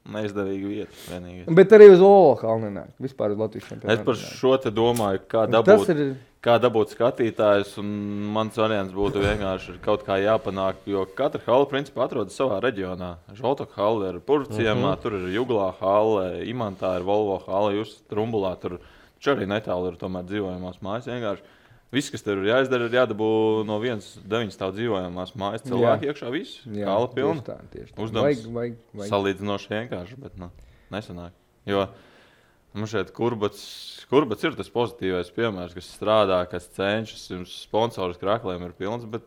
Neizdevīga vieta, vienīgais. Bet arī uz Volvo halu nenāk, vispār uz Latvijas čempionātu. Es par šo te domāju, kā dabūt skatītājus, un mans variants būtu vienkārši kaut kā jāpanāk, jo katra hala principā atrodas savā reģionā. Žoltoka hala ir Purvciemā, tur ir Juglā hala, Imantā ir Volvo hala, jūs Trumbulā, tur arī netālu ir tomēr dzīvojamās mājas vienkārši. Viss, kas tur ir jāizdara, ir jādabū no 9 stāv dzīvojamās mājas cilvēki iekšā visu. Hala pilna. Uzdevums salīdzinoši vienkārši, bet nesanāk. Jo Man šeit Kurbats ir tas pozitīvais piemērs, kas strādā, kas cenšas, jums sponsoris krākliem ir pilns, bet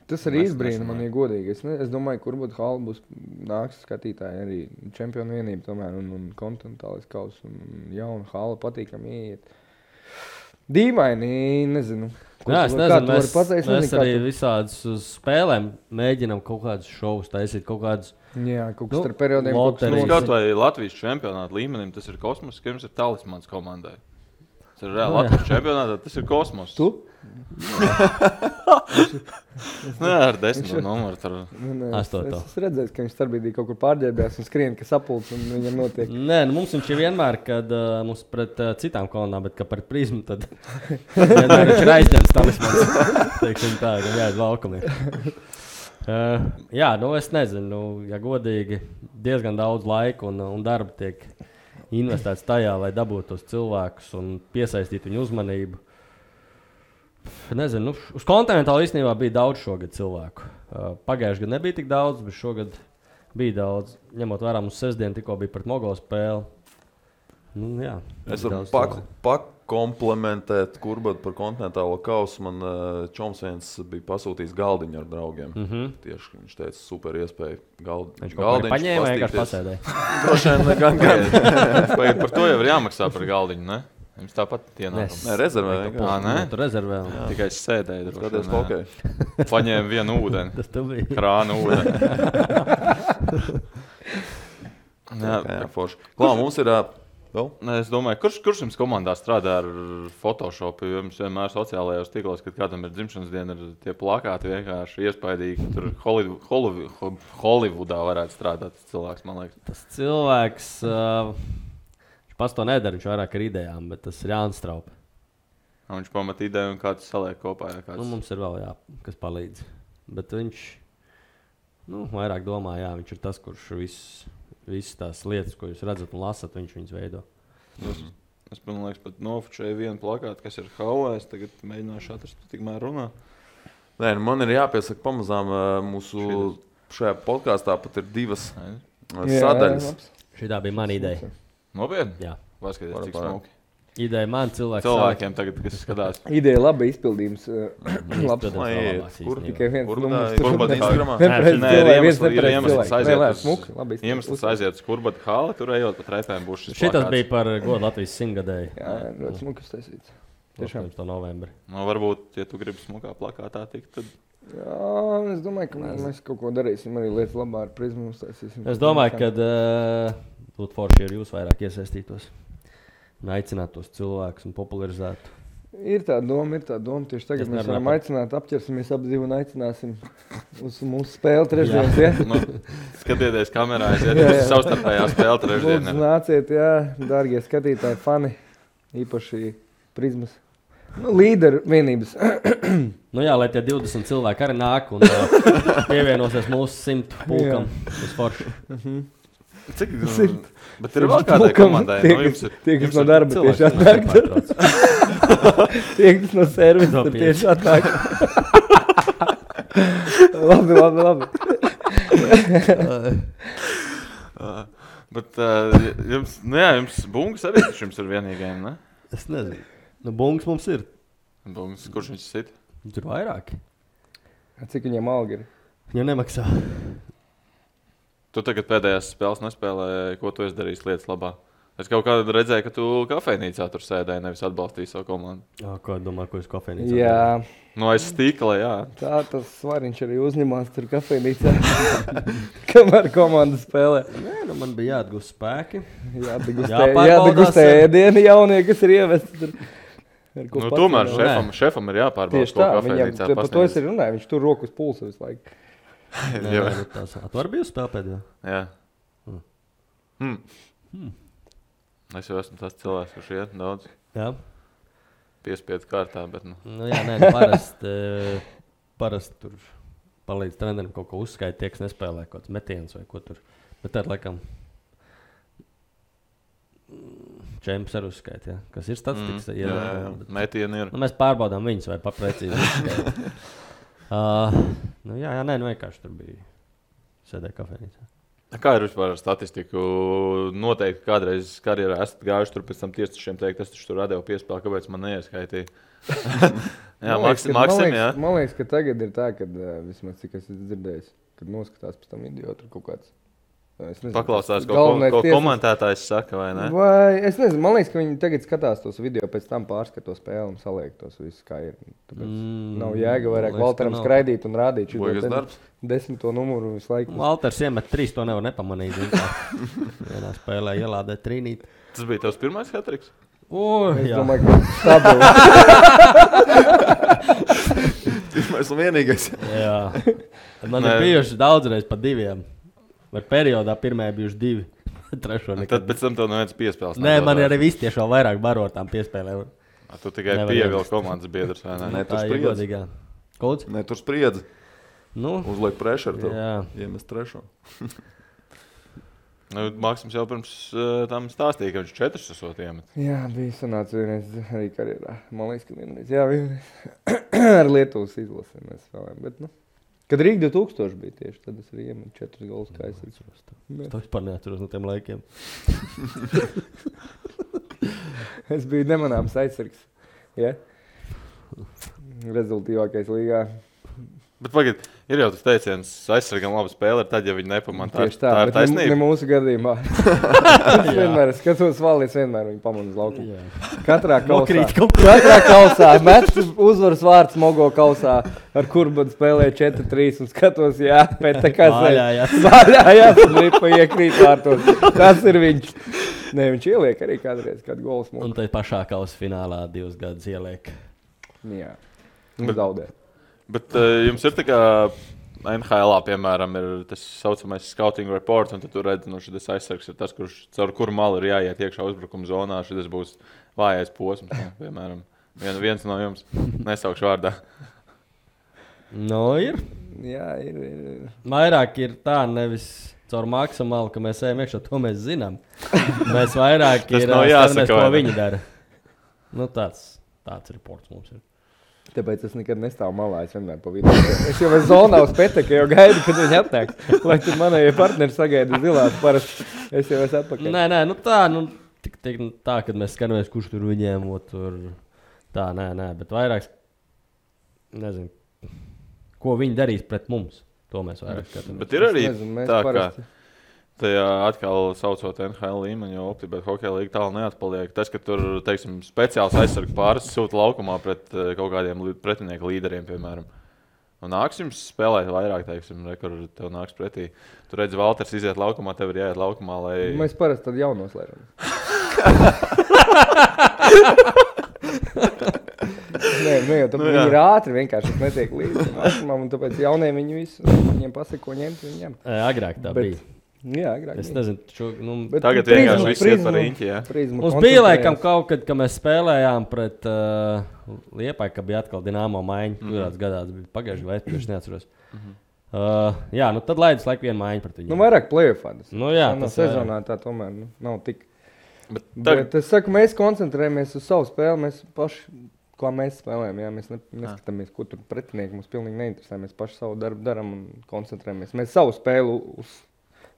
tas arī izbrīna man, ja godīgi. Es domāju, ka Kurbata hala būs nāks skatītāji arī čempionu vienība tomēr un kontinentālais kaus un jauna hala patīkam ieiet. Dīvaini, nezinu. Jā, es nezinu, mēs arī visādus uz spēlēm mēģinam kaut kādus šovus taisīt, kaut kādus. Jā, kaut kas ar periodiem. Kaut vai Latvijas čempionāta līmenim, tas ir kosmos, ka jums ir talismans komandai. Tas ir reāli Latvijas čempionātā, tas ir kosmos. Tu? Nē, ar 10 numuru. Es redzēju, ka viņš starpbrīdī kaut kur pārģērbjās un skrien, ka sapulc un viņam notiek. Nē, mums viņš ir vienmēr, kad mums pret citām kolonām, bet ka par prizmu, tad vienmēr viņš ir aizņemts talismans. Teiksim tā, ka jāiet laukumiem. Jā, es nezinu, ja godīgi, diezgan daudz laika un darba tiek investēts tajā, lai dabūtu tos cilvēkus un piesaistītu viņu uzmanību. Nezinu, uz kontinentāla īstenībā bija daudz šogad cilvēku. Pagājuši gadu nebija tik daudz, bet šogad bija daudz. Ņemot vērā mums sestdien tikko bija pret Mogo spēli. Jā, es varu pakomplementēt Kurbatu par kontinentālo kausu. Man čoms viens bija pasūtījis galdiņu ar draugiem. Tieši viņš teica, super iespēja galdiņš. Viņš kaut kā paņēma, vienkārši pasēdēja. Droši vien gan. Par to jau ir jāmaksā par galdiņu, ne? Jums tāpat ienākums. Nē, rezervē. Nē? Tu rezervē. Tikai es sēdēju. Skaties, hokej. Paņēmu vienu ūdeni. Tas tev bija. Krānu ūdeni. Jā, forši. Klā, mums ir vēl? Nē, es domāju, kurš jums komandā strādā ar Photoshopu? Jums vienmēr sociālajos tīklos, kad kādam ir dzimšanas diena, ir tie plakāti vienkārši iespaidīgi. Tur Hollywoodā varētu strādāt tas cilvēks, man liekas. Tas cilvēks... Pats to nedara, viņš vairāk ar idejām, bet tas ir Jānis Straupe. Viņš pamat ideju un kāds saliek kopā. Mums ir vēl, kas palīdz. Bet viņš vairāk domā, viņš ir tas, kurš visas tās lietas, ko jūs redzat un lasat, viņš viņas veido. Es man liekas, pat nofočēju vienu plakātu, kas ir haulē. Es tagad mēģināšu atrast, tikmēr runā. Nē, man ir jāpiesaka pamazām mūsu šajā podkāstā pat ir 2 sadaļas. Šitā bija mana ideja. Nopietni? Jā. Paskaties, cik smuki. Ideja man cilvēkiem tagad, kas skatās. Ideja laba, izpildījums labs. Kur? Tikai viens numurs. Kurbata Instagramā? Iemesls aiziet uz Kurbata hali, tur ejot pa treipēm būs šis plakāts. Šitas bija par godu Latvijas 100-gadēju. Jā, ļoti smukas taisīts. Tiešām. To novembri. Varbūt, ja tu gribi smukā plakātā tikt, tad... Jā, es domāju, ka mēs kaut ko darīsim arī lietas labā ar prizmu uztaisīsim. Es domāju, ka būtu forši, ja jūs vairāk iesaistītos un aicinātu tos cilvēkus un popularizētu. Ir tā doma. Tieši tagad mēs varam aicināt, apķersimies ap divu un aicināsim uz mūsu spēli trešdienas. Ja? Skatieties kamerā, aiziet savstarpējā spēle trešdien. Lūdzu, nāciet, dārgie skatītāji, fani, īpaši prizmas. Līderu vienības. Lai tie 20 cilvēki arī nāk un pievienosies mūsu 100 pulkam uz foršu. Cik? Bet ir vēl kādai komandai. Tie, kas no darba tieši atnāk. Tie, kas no servisa tieši atnāk. Labi. Bet jums bungas arī jums ir vienīgajiem, ne? Es nezinu. Bungas mums ir. Bungas, kurš viņš sit? Tur vairāki. Cik viņiem alga ir? Viņam nemaksā. Tu tagad pēdējās spēles nespēlēji, ko tu esi darījis lietas labā? Es kaut kādā redzēju, ka tu kafejnīcā tur sēdēji, nevis atbalstīji savu komandu. Ko domā, ko es kafejnīcā? Jā. Aiz stīkla, jā. Tā tas svariņš arī uzņemās tur kafejnīcā, kamēr komanda spēlē. Nē, man bija jāatgūst spēki. Jāatgūst ēdieni jaunie, kas ir ievesti tur. Tomēr šefam ir jāpārbauda, ko kafejnīcā pasniedz. Par to es arī runāju, viņš tur roku uz pulsa visu laiku. Tu vari bija spēlēt pēdējā? Jā. Es jau esmu tas cilvēks, kurš iet daudz. Jā. Piespiedu kārtā, bet parasti tur palīdz trenerim kaut ko uzskaita, tie, kas nespēlē kaut kāds metiens vai ko tur. Bet tad, laikam, čemps arī uzskaita, kas ir statistikas. Metieni ir. Mēs pārbaudām viņus vai paprecīzi uzskaita. Vienkārši tur bija sēdēja kafejnīcā. Kā ir vispār ar statistiku? Noteikti kādreiz karjerā esat gājuši tur pēc tam tiesnešiem teikt, es taču tur radēju piespēli, kāpēc man neieskaitīja. Jā, Maksim, jā. Man liekas, ka tagad ir tā, ka vismaz cik es dzirdējis, kad noskatās pēc tam video tur kaut kāds. Paklausās, ko komentētājs saka, vai ne? Vai, es nezinu, man liekas, ka viņi tagad skatās tos video, pēc tam pārskatos spēli un saliek tos visus, kā ir. Tāpēc nav jēga vairāk Valteram skraidīt un rādīt šo 10. numuru visu laiku. Valters iemet 3, to nevar nepamanīt. Vienā spēlē ielādē trīnīt. Tas bija tavs pirmais hat-triks? Es domāju, ka stabili. Pirmais un vienīgais. Jā. Man ir bijuši daudzreiz pa 2. Vai periodā pirmajā bijuši 2. Trešo nekad. Tad pēc tam tev neviens piespēles. Nē, man ir arī visi tieši vēl vairāk baro tām piespēlēm. Tu tikai pievilki komandas biedrs, vai ne? Nē, tur spriedzi. Kolds? Nē, tur spriedzi. Nu, Uzliek pressure tev. jā. Iemest trešo. Maksims jau pirms tam stāstīja, ka viņš 4 esot iemet. Jā, bija sanāca vienreiz arī karjerā. Man liekas, ka vienreiz. Jā, vienreiz. Ar Lietuvas izlasi mēs spēlējām, bet nu. Kad Rīga 2000 bija tieši, tad es arī iemetu 4 golus, kā es atceros. Es vispār neatceros no tiem laikiem. Es biju nemanāms aizsargs. Ja? Rezultīvākais līgā. Bet pagad, ir jau tas teiciens, aizsargam labu spēli ir tad, ja viņi nepamanā. Tieši tā, tā ir bet taisnība. ne mūsu gadījumā. Es vienmēr skatos valdi, es vienmēr viņu pamanu uz laukumu. Katrā kausā. Mets uzvaras vārds Mogo kausā, ar Kurbanu spēlē 4-3 un skatos, jā, pēc tā kā vaļājās un ripa iekrīt vārtos. Tas ir viņš. Nē, viņš ieliek arī kādreiz kādu gols mums. Un tai pašā kausa finālā 2 gadus ieliek. Jā, un zaudē. Bet jums ir tā kā NHL-ā, piemēram, ir tas saucamais scouting report, un tad tu redzi, nu šis aizsargs ir tas, caur kuru malu ir jāiet iekšā uzbrukuma zonā. Šis būs vājais posms, piemēram. Viens no jums nesaukšu vārdā. Nu, ir. Jā, ir. Vairāk ir tā, nevis caur maksimālu, ka mēs ejam iekšā, to mēs zinām. Mēs vairāk ir jāsaka, ko viņi dara. Nu, tāds reports mums ir. Tāpēc es nekad nestāvu malā, es vienmēr pa vidu. Es jau esmu zonā uz Peteka, jau gaidu, kad viņi atnāks. Lai tur manējie partneri sagaida zilās parasti. Es jau esmu atpakaļ. Nē, nu tā, kad mēs skatāmies, kurš tur viņiem, tur tā, nē, bet vairāk, nezinu, ko viņi darīs pret mums. To mēs vairāk skatāmies. Bet ir arī tā, ka tajā atkal saucot NHL līmeni, jo optibēt hokeja līga tālu neatpaliek. Tas, ka tur, teiksim, speciāls aizsargu pāris sūta laukumā pret kaut kādiem pretinieku līderiem, piemēram. Un nāks jums spēlēt vairāk, teiksim, kur tev nāks pretī. Tu redzi, Valters iziet laukumā, tev ir jāiet laukumā, lai... Mēs parasti tad jau noslēžam. Nē, jau tāpēc viņi ir ātri, vienkārši netiek līdzi. Un tāpēc jaunie viņi visu, viņiem pasaka, ko ņemt, viņi ņem. Agrāk tā bija. Jā, agrāk. Es nezinu, tagad vienkārši viss iet par riņķi, jā. Mums bija laikam kaut kad, kad mēs spēlējām pret Liepāju, ka bija atkal Dinamo maiņa. Kurās gadās bija pagājuši vai es neatceros. Jā, nu tad laidus laiku vienu maiņu pret viņiem. Nu vairāk play-offā. Nu jā, tas sezonā tā tomēr nav tik. Bet es saku, mēs koncentrējamies uz savu spēli, mēs paši, kā mēs spēlējam, jā, mēs neskatāmies, ko tur pretinieki mums pilnīgi neinteresē. Mēs paši savu darbu daram un koncentrējamies. Mēs savu spēli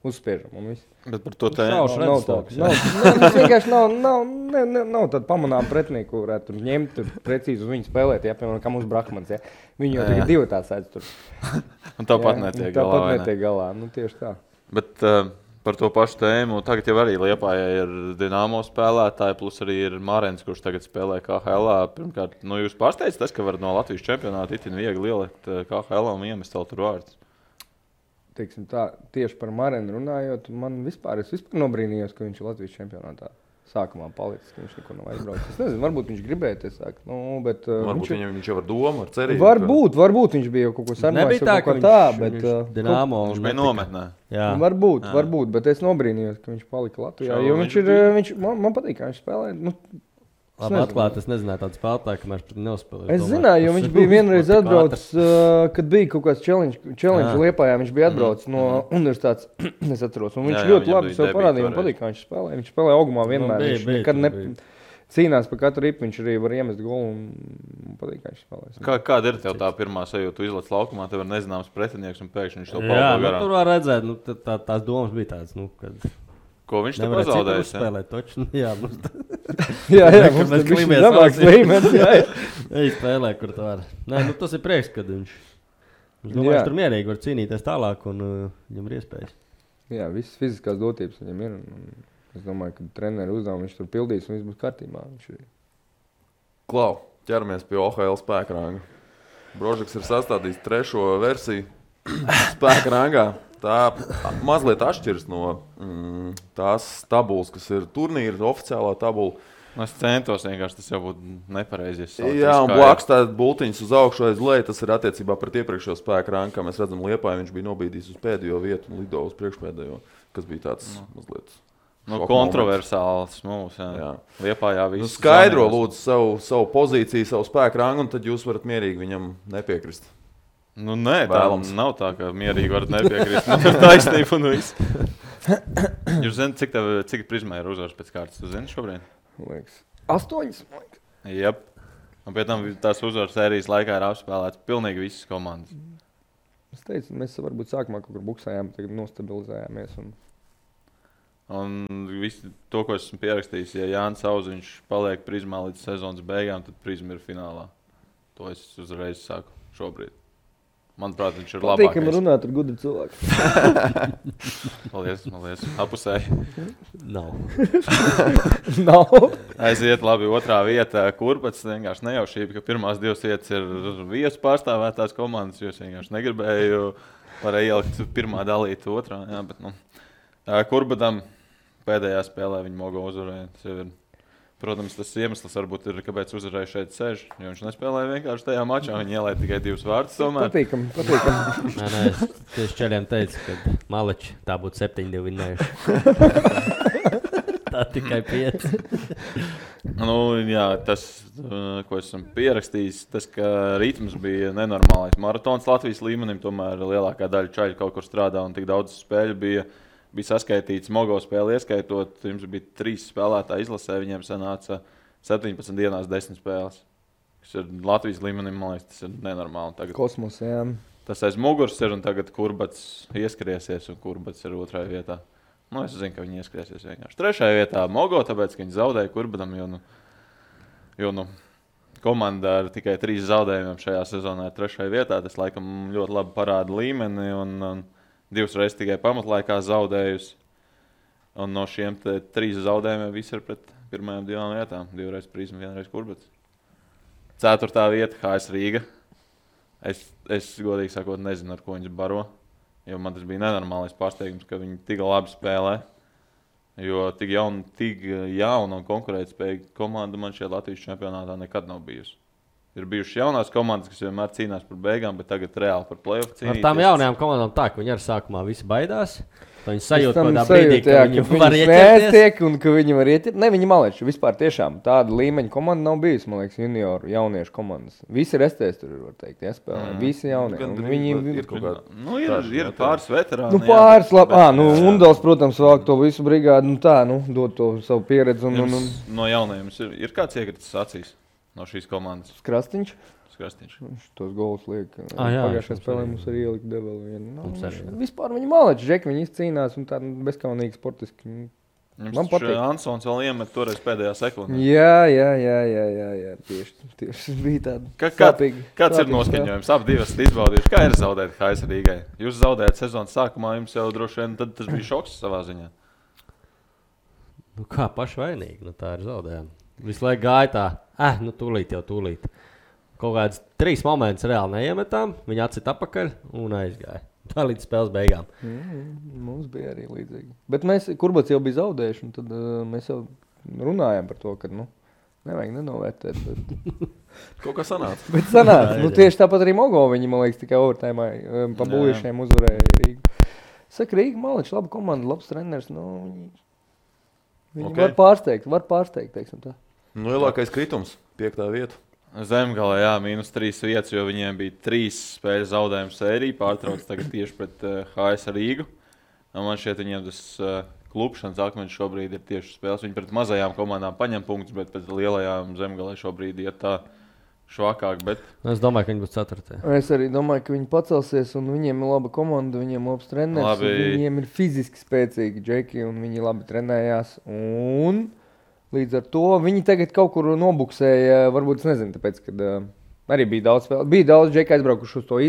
uzspiežam un viss. Bet par to tā nav vienkārši nav tāda pamanām pretinieku, ko varētu tur ņemt, tur precīzi uz viņu spēlēt, jā, piemēram, kā mūsu Brahmans, jā. Viņi jau tagad 2 tā sēdz tur. Un tāpat netiek galā, tāpat netiek galā, nu tieši tā. Bet par to pašu tēmu, tagad jau arī Liepājā ir Dinamo spēlētāji, plus arī ir Marens, kurš tagad spēlē KHL-ā. Pirmkārt, nu jūs pārsteidz tas, ka var no Latvijas čempionāta itin viegli ielikt KHL-ā un iemest vēl tur vārds. Teiksim tā, tieši par Marenu runājot, es vispār nobrīnījos, ka viņš ir Latvijas čempionātā sākumā palicis, ka viņš neko nav aizbraucis. Es nezinu, varbūt viņš gribēja te sākt, bet... Varbūt viņš jau ar domu, ar cerību. Varbūt viņš bija jau kaut ko sarunājis, kaut ko tā, bet... Dinamo viņš bija nometnē. Jā. Varbūt, bet es nobrīnījos, ka viņš palika Latvijā, jo man patīk, kā viņš spēlē. Labi, atklāt, es nezināju tādu spēlētāju, kamēr viņš nespēlēja. Es zināju, jo viņš bija vienreiz atbraucis, kad bija kaut kāds challenge Liepājā, viņš bija atbraucis no universitātes, es atceros, un viņš ļoti labi sev parādīja, man patīk, kā viņš spēlēja. Viņš spēlēja augumā vienmēr, viņš nekad cīnās par katru ripu, viņš arī var iemest golu un patīk, kā viņš spēlēs. Kāda ir tev tā pirmā sajūta? Tu izlaiž laukumā, tev ir nezināms pretinieks un pēkšņi viņš to Jā, paldo garām. tur var redzēt, tās domas bija tādas, kad Ko viņš te nevarēja pazaudējis? citu uzspēlēt, toču. Jā, Jā, Kad mums mēs tur bišķi klimies zemāks valstī. līmenis. Jā, jā. Ej, spēlē, kur tu vari. Nē, tas ir prieks, kad viņš domāju, Jā. viņš tur mierīgi var cīnīties tālāk un viņam ir iespējas. Jā, visas fiziskās dotības viņam ir. Un es domāju, ka treneru uzdevumu viņš tur pildīs un viss būs kārtībā. Viņš ir. Klau, ķeramies pie OHL spēka ranga. Brožeks ir sastādījis 3. versiju spēka rangā. Tā mazliet atšķiras no tās tabulas, kas ir turnīra oficiālā tabula. Es centos vienkārši, tas jau būtu nepareizi. Jā, un blakus tādas bultiņas uz augšu aiz leju, tas ir attiecībā pret iepriekšējo spēka rangu, kā mēs redzam Liepāju, viņš bija nobīdījis uz pēdējo vietu un lido uz priekšpēdējo, kas bija tāds mazliet kontroversāls mūs. Jā. Liepājā viss. Skaidro lūdzu savu pozīciju, savu spēka rangu, un tad jūs varat mierīgi viņam nepiekrist. Nē, tā Vēlams. nav tā, ka mierīgi varat nepiekrist. Ir taisnība un viss. Jūs zināt, cik prizmē ir uzvaras pēc kārtas? Jūs zināt šobrīd? Liekas, 8. Jep. Un pēc tam tās uzvaras sērijas laikā ir apspēlēts pilnīgi visas komandas. Es teicu, mēs varbūt sākumā kaut kur buksējām, tagad nostabilizējāmies. Un visu to, ko esmu pierakstījis, ja Jānis Auziņš paliek prizmā līdz sezonas beigām, tad prizma ir finālā. To es uzreiz saku šobrīd. Manuprāt, viņš ir labākais. Patīkam runāt ar gudru cilvēku. Paldies. Apusēji. Nav. Nav. Aiziet labi otrā vieta. Kurbats vienkārši nejaušība, ka pirmās 2 vietas ir viesu pārstāvētās komandas, jo es vienkārši negribēju ielikt pirmā dalīt otrā. Jā, bet, Kurbatam pēdējā spēlē viņa mogo uzvarēja. Protams, tas iemesls varbūt ir, kāpēc uzvarēja šeit sēž, jo viņš nespēlēja vienkārši tajā mačā. Viņi ielaida tikai 2 vārdus tomēr. Patīkam. Nē, es tieši čeļiem teicu, ka Maleči tā būtu 7-2 vinnējuši. Tā tikai 5. Jā, tas, ko esmu pierakstījis, tas, ka ritms bija nenormālais. Maratons Latvijas līmenim, tomēr lielākā daļa čaļu kaut kur strādā un tik daudz spēļu bija saskaitīts mogo spēli ieskaitot. Jums bija 3 spēlētāji izlasē, viņiem sanāca 17 dienās 10 spēles. Tas ir Latvijas līmenim, man liekas, tas ir nenormāli. Tagad Kosmos, jā. tas aiz muguras ir un tagad Kurbats ieskriesies un Kurbats ir 2. vietā. Es zinu, ka viņi ieskriesies vienkārši 3. vietā mogo, tāpēc, ka viņi zaudēja Kurbatam, jo komanda ar tikai 3 zaudējumiem šajā sezonā ir 3. vietā. Tas laikam ļoti labi parāda līmeni un 2 reizes tikai pamatlaikā zaudējusi. Un no šiem 3 zaudējumiem viss ir pret pirmajām 2 vietām. 2 reizes Prizma, 1 reize Kurbats. 4. vieta HS Rīga. Es godīgi sakot nezinu, ar ko viņas baro. Jo man tas bija nenormālais pārsteigums, ka viņi tik labi spēlē. Jo tik jauna un konkurētspējīga komanda man šajā Latvijas čempionātā nekad nav bijusi. Ir bijušas jaunās komandas, kas vienmēr cīnās par beigām, bet tagad reāli par play-off cīnīties. Ar tām jaunajām komandām tā, ka viņi arī sākumā visi baidās. Viņi sajūt Tam kādā brīdī, ka sajūt, jā, viņi var ieķerties. Tiek, un ka viņi var ieķert. Ne, viņi maleči. Vispār tiešām tāda līmeņa komanda nav bijusi, man liekas, junioru jauniešu komandas. Visi restēs tur, var teikt, jāspēlē. Visi jaunie. Gan Un viņi ir kaut kāda. Ir pāris veterāni. pāris labi. Undals, protams, vāk to visu brigādu. Dod to savu pieredzi. No jaunajiem ir kāds iekritis acīs no šīs komandas? Krastīņš. Krastīņš. Viņš tos golus liek. Jā, Pagājušajā mums spēlē arī. mums arī ielika develi vienu. Mums arī, jā. Vispār viņi maleči, Džeki, viņi izcīnās un tā bezkaunīgi sportiski. Man patīk. Ansons vēl iemet toreiz pēdējā sekundē. Jā. Tieši bija tāda sāpīga. Kāds ir noskaņojums? Abi divas izbaudījuši. Kā ir zaudēt HS Rīgai? Jūs zaudējat sezonas sākumā, jums jau droši vien tad tas bija šoks savā ziņā. Kā pašvainīgi, tā ir zaudējuma. Visu laiku gāja tā, tūlīt. Kaut kāds 3 momentus reāli neiemetām, viņi atcita atpakaļ un aizgāja. Tā līdz spēles beigām. Mums bija arī līdzīgi. Bet mēs, Kurbats jau bija zaudējuši, un tad mēs jau runājām par to, ka, nevajag nenovērtēt. Bet... Kaut kā sanāca. Bet sanāca. Tieši tāpat arī Mogo viņi, man liekas, tikai overtājumā pa buļiešiem uzvarēja Rīgu. Saka, Rīga Maličs, laba komanda, labs treneris, viņi var pārsteigt, teiksim tā. Lielākais kritums, 5. vieta. Zemgalē, -3 vietas, jo viņiem bija 3 spēļu zaudējumu sērija, pārtrauc tagad tieši pret HS Rīgu. Un man šķiet, viņiem tas klupšanas akmeņš šobrīd ir tieši spēles. Viņi pret mazajām komandām paņem punktus, bet pret lielajām Zemgalē šobrīd iet tā švakāk. Bet... Es domāju, ka viņi būs 4. Es arī domāju, ka viņi pacelsies, un viņiem ir laba komanda, viņiem ir labs treneris. Viņiem ir fiziski spēcīgi džeki, un viņi labi trenējās. Un līdz ar to viņi tagad kaut kur nobuksēja, varbūt es nezinu, tāpēc, kad arī bija daudz spēlē. Bija daudz džeki aizbraukuši uz to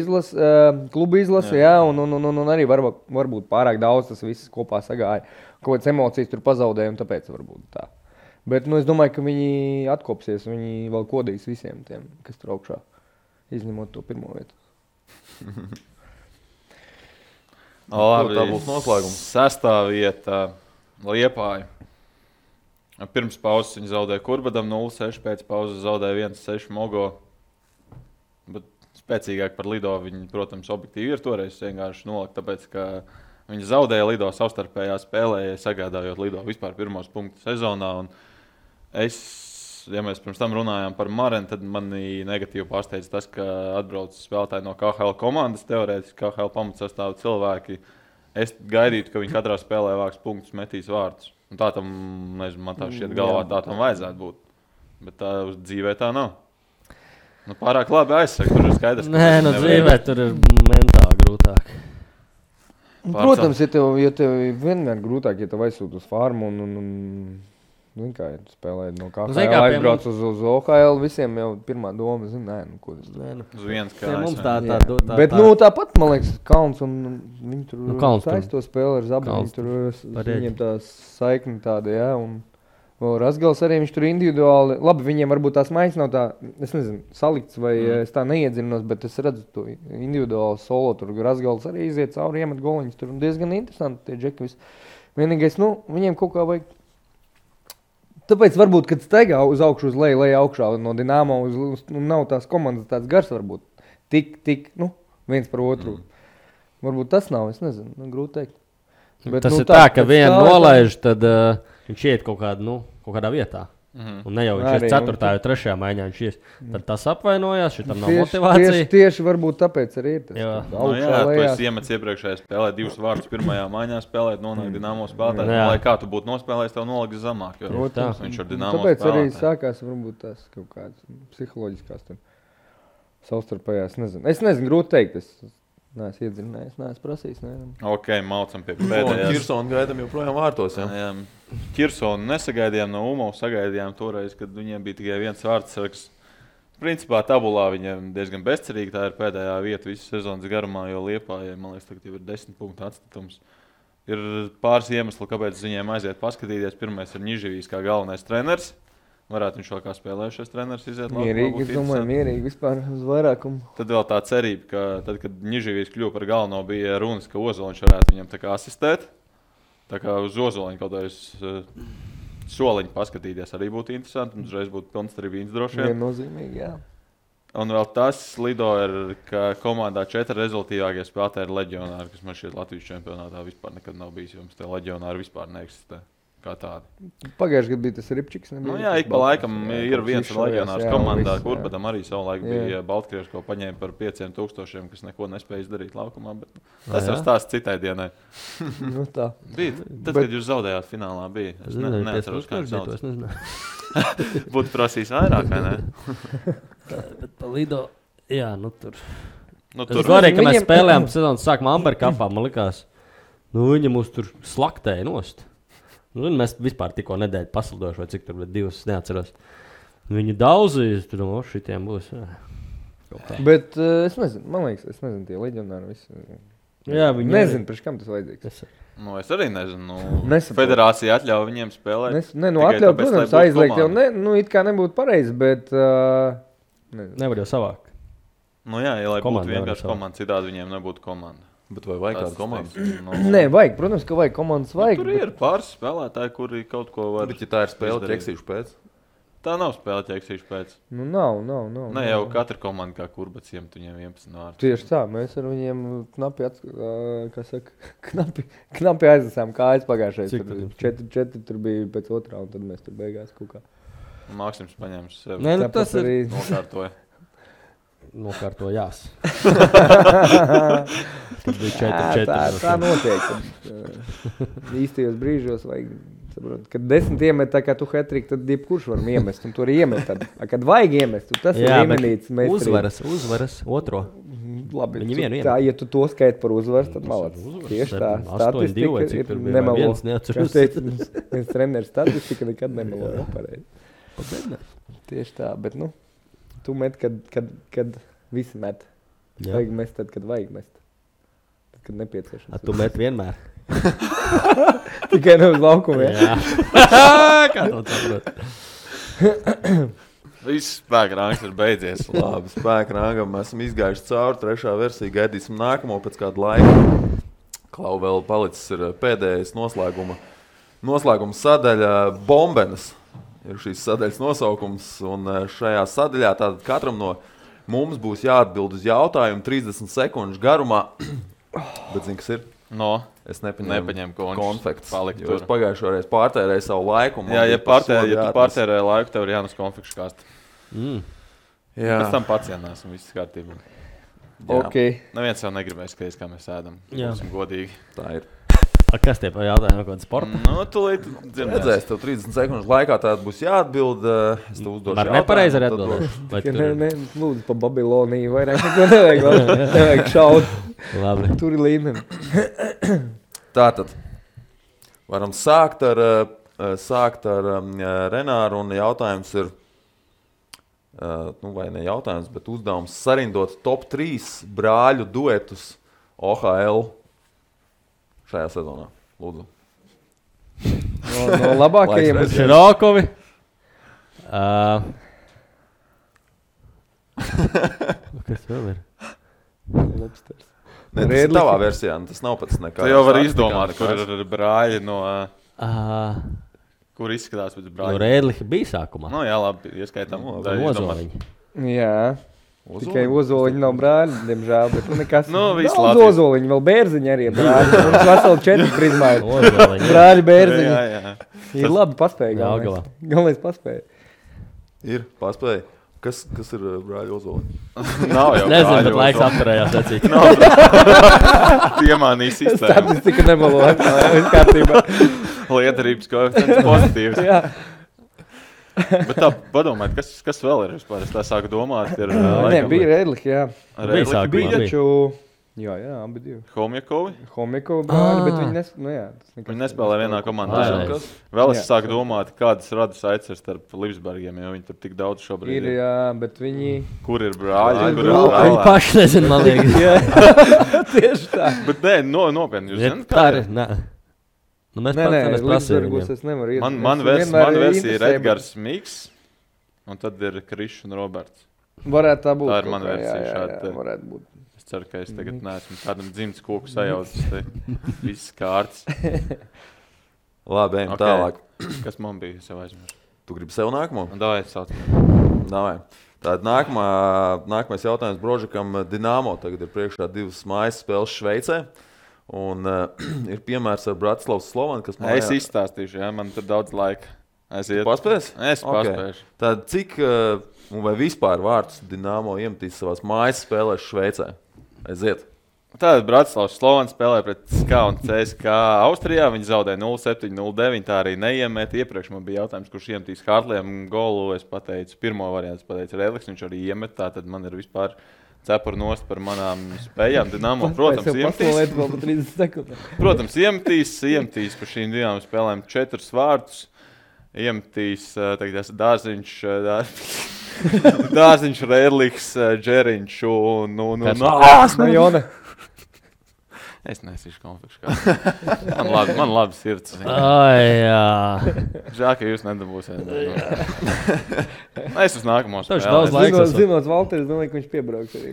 klubu izlasi, jā, un arī varbūt pārāk daudz tas viss kopā sagāja. Kaut kādas emocijas tur pazaudēja, un tāpēc varbūt tā. Bet es domāju, ka viņi atkopsies, viņi vēl kodīs visiem tiem, kas tur augšā, izņemot to pirmo vietu. Labi, tā būs noslēgums. 6. vieta Liepāja. Pirms pauzes viņi zaudēja Kurbadam 0-6, pēc pauzes zaudēja 1-6 Mogo. Bet spēcīgāk par Lido viņi, protams, objektīvi ir toreiz vienkārši nolikt, tāpēc, ka viņi zaudēja Lido savstarpējā spēlē, sagādājot Lido vispār pirmos punktus sezonā. Un ja mēs pirms tam runājām par Marenu, tad mani negatīvi pārsteidz tas, ka atbrauc spēlētāji no KHL komandas, teorētiski KHL pamatsastāvu cilvēki. Es gaidītu, ka viņi katrā spēlē vāks punktus, metīs vārdus. Un tā tam, nezinu, man tā šķiet galvā, tā tam vajadzētu būt. Bet tā uz dzīvē tā nav. Nu, pārāk labi aizsaka, tur ir skaidrs. Nē, no dzīvē tur ir mentāli grūtāk. Protams, ja tev vienmēr grūtāk, ja tev aizsūt uz farmu un kā ja spēlēt no KHL, aizbrauc uz OHL, visiem jau pirmā doma, ko tas ir. Uz viens kā mums tā. Bet tāpat, man liekas, Kalns un viņi tur saisto spēli ar Zabu, viņiem tā saikni tāda, jā, un vēl Razgals arī viņš tur individuāli, labi, viņiem varbūt tās maiņas nav tā, es nezinu, salikts vai es tā neiedzinos, bet es redzu to individuāli solo, tur Razgals arī iziet cauri, iemet goliņus, tur diezgan interesanti tie džeki visi. Vienīgais, viņiem kaut kā vajag. Tāpēc varbūt, kad steigā uz augšu, uz leju augšā no Dinamo, nav tās komandas tāds gars varbūt. Tik, viens par otru. Varbūt tas nav, es nezinu, grūti teikt. Bet, tas ir tā, ka vienu nolaiž, tad viņš iet kaut kādā vietā. Un ne jau viņš ir 4. vai 3. maiņā, viņš ies. Tad tas apvainojās, šitam nav motivācija. Tieši varbūt tāpēc arī ir tas. Jā, tu esi iemets iepriekšējā spēlē 2 vārdus pirmajā maiņā spēlēt, nonāk Dinamo spēlētājs. Lai kā tu būtu nospēlējis, tev noliks zemāk. Viņš ar Dinamo tāpēc arī sākās varbūt tās kaut kādas psiholoģiskās savstarpējās. Es nezinu, grūti teikt. Neesmu iedzinājies, neesmu prasījis. Ok, maucam pie pēdējās. Kirsonu gaidām joprojām vārtos. Jā. Kirsonu nesagaidījām no UMO, sagaidījām toreiz, kad viņiem bija tikai viens vārdsargs. Principā tabulā viņiem diezgan bezcerīgi. Tā ir pēdējā vieta visu sezonas garumā, jo Liepājai, man liekas, tagad jau ir 10 punktu atstatums. Ir pāris iemesli, kāpēc viņiem aiziet paskatīties. Pirmais ir Niživijs kā galvenais treneris. Varētu viņš vēl kā spēlējušies treneris iziet labi. Mierīgi, es domāju, mierīgi vispār uz vairākumu. Tad vēl tā cerība, ka tad, kad Niživijs kļuva par galveno, bija runas, ka Ozoliņš varētu viņam tā kā asistēt. Tā kā uz Ozoliņu kaut kādreiz soliņu paskatīties arī būtu interesanti. Un uzreiz būtu pilns tribīns droši vien. Viennozīmīgi, jā. Un vēl tas Lido ir, ka komandā 4 rezultīvākie spēlētāji ir leģionāri, kas man šķiet Latvijas čempionātā vispār nekad nav bijis, jo mums tie leģionāri vispār neeksistē. Kā tādi. Pagājušajā gadā bija tas Ripčiks. Jā, ik pa laikam ir viens leģionārs komandā, Kurbadam arī savulaik bija Baltkrieši, ko paņēma par 5,000, kas neko nespēja izdarīt laukumā. Bet tas jau stāsts citai dienai. Tā. Bija. Tad, kad jūs zaudējāt finālā, bija. Es neatceros, kā jūs sauc. Būtu prasījis vairāk, vai ne? Bet pa Lido, jā, tur. Tur arī, ka mēs spēlējām sezonas sākumā Amberkapā, man likās, viņi mūs tur slaktēja nost. Mēs vispār tikko nedēļu paslidojuši, vai cik tur bija 2, neatceros. Viņi daudzīs, tur šitiem būs. Bet es nezinu, man liekas, tie leģionāri visi. Jā, viņi nezinu, priekš kam tas vajadzīgs. Es arī nezinu. Federācija atļauj viņiem spēlēt. Atļauj, protams, aizliegt jau, it kā nebūtu pareizi, bet nevar jau savākt. Jā, lai būtu vienkārši komanda, citādi viņiem nebūtu komanda. Bet vai vajag kādu komandu? Nē, vajag. Protams, ka vajag komandas. Vajag, tur ir pāris spēlētāji, kuri kaut ko var. Bet ja tā ir spēle ķeksīšu pēc? Tā nav spēle ķeksīšu pēc. Nav. Ne jau katra komanda kā Kurbats iemet viņiem 11 vārdus. Tieši tā. Mēs ar viņiem knapi aizlasām kājas pagājušais. 4 tur bija pēc otrā, un tad mēs tur beigās kaut kā. Mākslims paņēma sev. Nē, tas arī nokārtoja. nokārtojās. Tad bija 4-4. Tā notiek. Īstajos brīžos vajag saprot, kad 10 iemet tā kā tu hat-trick, tad jebkurš var iemest, un tu arī iemet tad. Kad vajag iemest, tas ir līmenīts meistarības. Uzvaras otro. Labi, Viņi vienu tā, ja tu to skaiti par uzvaru, tad malāc. Tieši tā, statistika ir nemelo. Kas teica, viens treneris statistika nekad nemelo. Pareizi. Tieši tā, bet tu met, kad visi met. Vajag mest tad, kad vajag mest. Tad, kad nepieciešams. Tu met vienmēr. Tikai ne uz laukumiem. Jā. Kā to saprot? Viss spēka rangs ir beidzies. Labi, spēka rangam esam izgājuši cauri. Trešā versija gaidīsim nākamo pēc kāda laika. Klau vēl palicis ir pēdējais noslēguma sadaļa Bombenes. Ir šīs sadaļas nosaukums. Un šajā sadaļā tātad katram no mums būs jāatbild uz jautājumu 30 sekundžu garumā. Bet zini, kas ir? No. Es nepaņēmu konfekts. Jo es pagājušo reizi pārtērēju savu laiku. Jā, ja tu pārtērēji laiku, tev ir jānes konfekšu kāst. Jā. Pēc tam pacienās un viss kārtībā. Ok. Neviens jau negribēs skaties, kā mēs ēdam. Būsim godīgi. Tā ir. Kas tie pa jautājumu kaut kādu sportu? Tūlīt redzēs, tev 30 sekundžu laikā tāda būs jāatbild. Es tev uzdošu jautājumu. Var nepareizi arī atbildēt. Lūdzu, pa Babiloniju vairāk neko nevajag šaut. Labi. Tur ir līmeni. Tātad, varam sākt ar Renāru, un jautājums ir, vai ne jautājums, bet uzdevums sarindot top 3 brāļu duetus OHL šajā sezonā. Lūdzu. No labākajiem. Širokovi. Kas vēl ir? Lobsters. Ne, tas ir tavā versijā, tas nav pats nekā. Tu jau vari izdomāt, kur ir brāļi no... Kur izskatās pēc brāļi? No Rēdliha bija sākumā. Jā, labi, ieskaitām. Ozoliņi. Jā. Tikai ozoliņi nav brāļi, diemžēl, bet nekas. Viss daudz Latvijas. ozoliņi, vēl bērziņi arī ir brāļi. Mums veseli 4 prizmāji. Ozoliņi. Brāļi, bērziņi. Jā. Ir labi paspēja. Jāgalā. Galvenais paspēja. Ir, paspēja. Kas ir brāļi ozoliņi? Nav jau Nezinu, brāļi bet laiks ozoliņi. apturējās acīt. Piemānīja sistēmu. Statistika nemalo. Viss kārtībā. Lietarības koeficients pozitīvs. Jā. Bet tā, padomājiet, kas vēl ir vispār? Es tā sāku domāt. Nē, bija Rēdliha, jā. Bija sākumā. Taču, jā, abi divi. Homjakovi. Homjakovi brāļi, bet Viņi nespēlē vienā komandā. Pareizi. Vēl es sāku domāt, kādas radas aiceras starp Lipsbergiem, jo viņi tur tik daudz šobrīd ir. Jā, bet viņi... Kur ir brāļi? Kur ir Viņi brāļi? paši nezinu, man liekas. Tieši tā. Bet nē, nopietni. Jūs zināt, Tā ir, nē. Mēs Nē, prasījām Lipsbergos es nevaru iet. Man versija ir Edgars Miks, un tad ir Krišs un Roberts. Varētu tā būt. Tā ir mana versija šāda. Jā, varētu būt. Es ceru, ka es tagad neesmu tādam dzimts koku sajaucis. Viss kārtas. Labi, ejam tālāk. Kas man bija? Es jau aizmirsu. Tu gribi sev nākamo? Davai, sauc. Davai. Tātad nākamais jautājums Brožikam. Dinamo tagad ir priekšā 2 mājas spēles Šveicē. Un ir piemērs ar Bratislavas Slovanu, kas man... Es izstāstīšu, jā, man tur daudz laika. Paspēs? Es paspēšu. Tad cik, vai vispār vārtus Dinamo iemetīs savās mājas spēlēs Šveicē? Aiziet. Tātad Bratislavas Slovana spēlē pret SK un CSK Austrijā. Viņi zaudēja 0-7, 0-9, tā arī neiemet. Iepriekš man bija jautājums, kurš iemetīs Hartliem golu. Es pateicu, pirmo variantu pateicu Rēdliks, viņš arī iemet. Tātad man ir vispār... cepur nost par manām spējām. Dinamo, protams, iemetīs par šīm 2 spēlēm 4 vārtus. Iemetīs, tagad Dārziņš, Rēdliks, Džeriņš un... Jone. Es nesīšu konfekšu kā. Man labi sirds. Jā. Žēl, ka jūs nedabūsiet. Es uz nākamo Daudz spēlē. laika. Zinot Valteris, domāju, ka viņš piebrauks arī.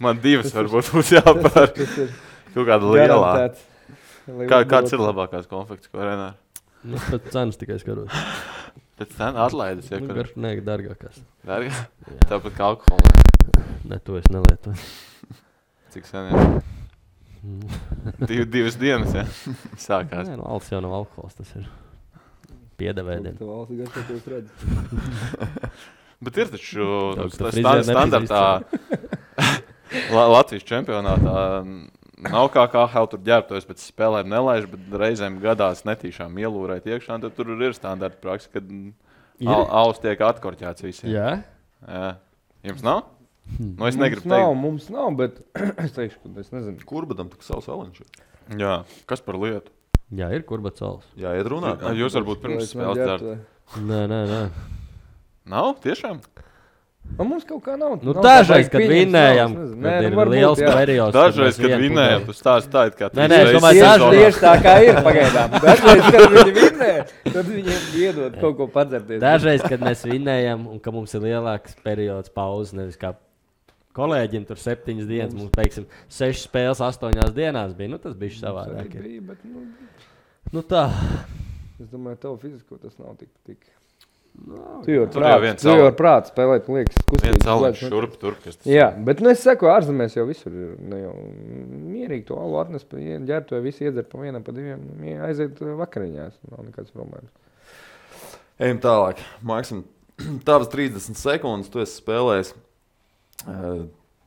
Man 2 varbūt būs jāpār. Kaut kāda lielā. Kāds ir labākās konfekts, ko Renāri? Pēc cenas tikai skaros. Pēc cenas atlaides, ja kur? Nē, dārgākās. Dārgā? Tāpat kā alkohola. Ne, to es nelietoju. Cik sen jau? 2 dienas, ja? Sākās. Nē, alus jau nav alkohols, tas ir piedevēdiem. Bet ir taču tā frizēra standartā Latvijas čempionātā nav kā KHL tur ģērbtojas pēc spēlēm nelaiž, bet reizēm gadās netīšām ielūrēt iekšā, tad tur ir standarta praksa, kad aus tiek atkorķēts visiem. Jā. Jums nav? Nu, es negribu teikt. Mums nav, bet es teikšu, ka es nezinu. Kurbadam tik savs aliņš. Jā, kas par lietu? Jā, ir Kurbats Sals. Jā, iet runāt. Jūs varbūt pirms spēles dzert. Nē. Nav? Tiešām? Mums kaut kā nav. Nu, dažreiz, kad vinnējam, kad ir liels periods. Dažreiz, kad vinnējam, tu stāsti tā, it kā Nē, es domāju, tieši tā kā ir pagaidām. Dažreiz, kad viņi vinnē, tad viņiem iedod kaut ko padzerties. Dažreiz, kad mēs vinnējam un ka mums ir lielāks periods pauzes, nevis kā kolēģim tur 7 dienas, mums, teiksim, 6 spēles 8 dienās bija. Nu, tas bija savādāk. Bija, bet, nu tā. Es domāju, tev fizisko tas nav tik. No, tu jau ar prātu spēlēt, man liekas, kustīgi. Viens aliņš šurp tur, kas tas jā, bet es saku, ārzemēs jau visur ir. Nu, jau mierīgi to alu atnes, ģērbtoju visi iedzer pa vienam, pa diviem, aiziet vakariņās. Nav nekāds problēmas. Ejam tālāk. Maksim, tavas 30 sekundes, tu esi spēlējis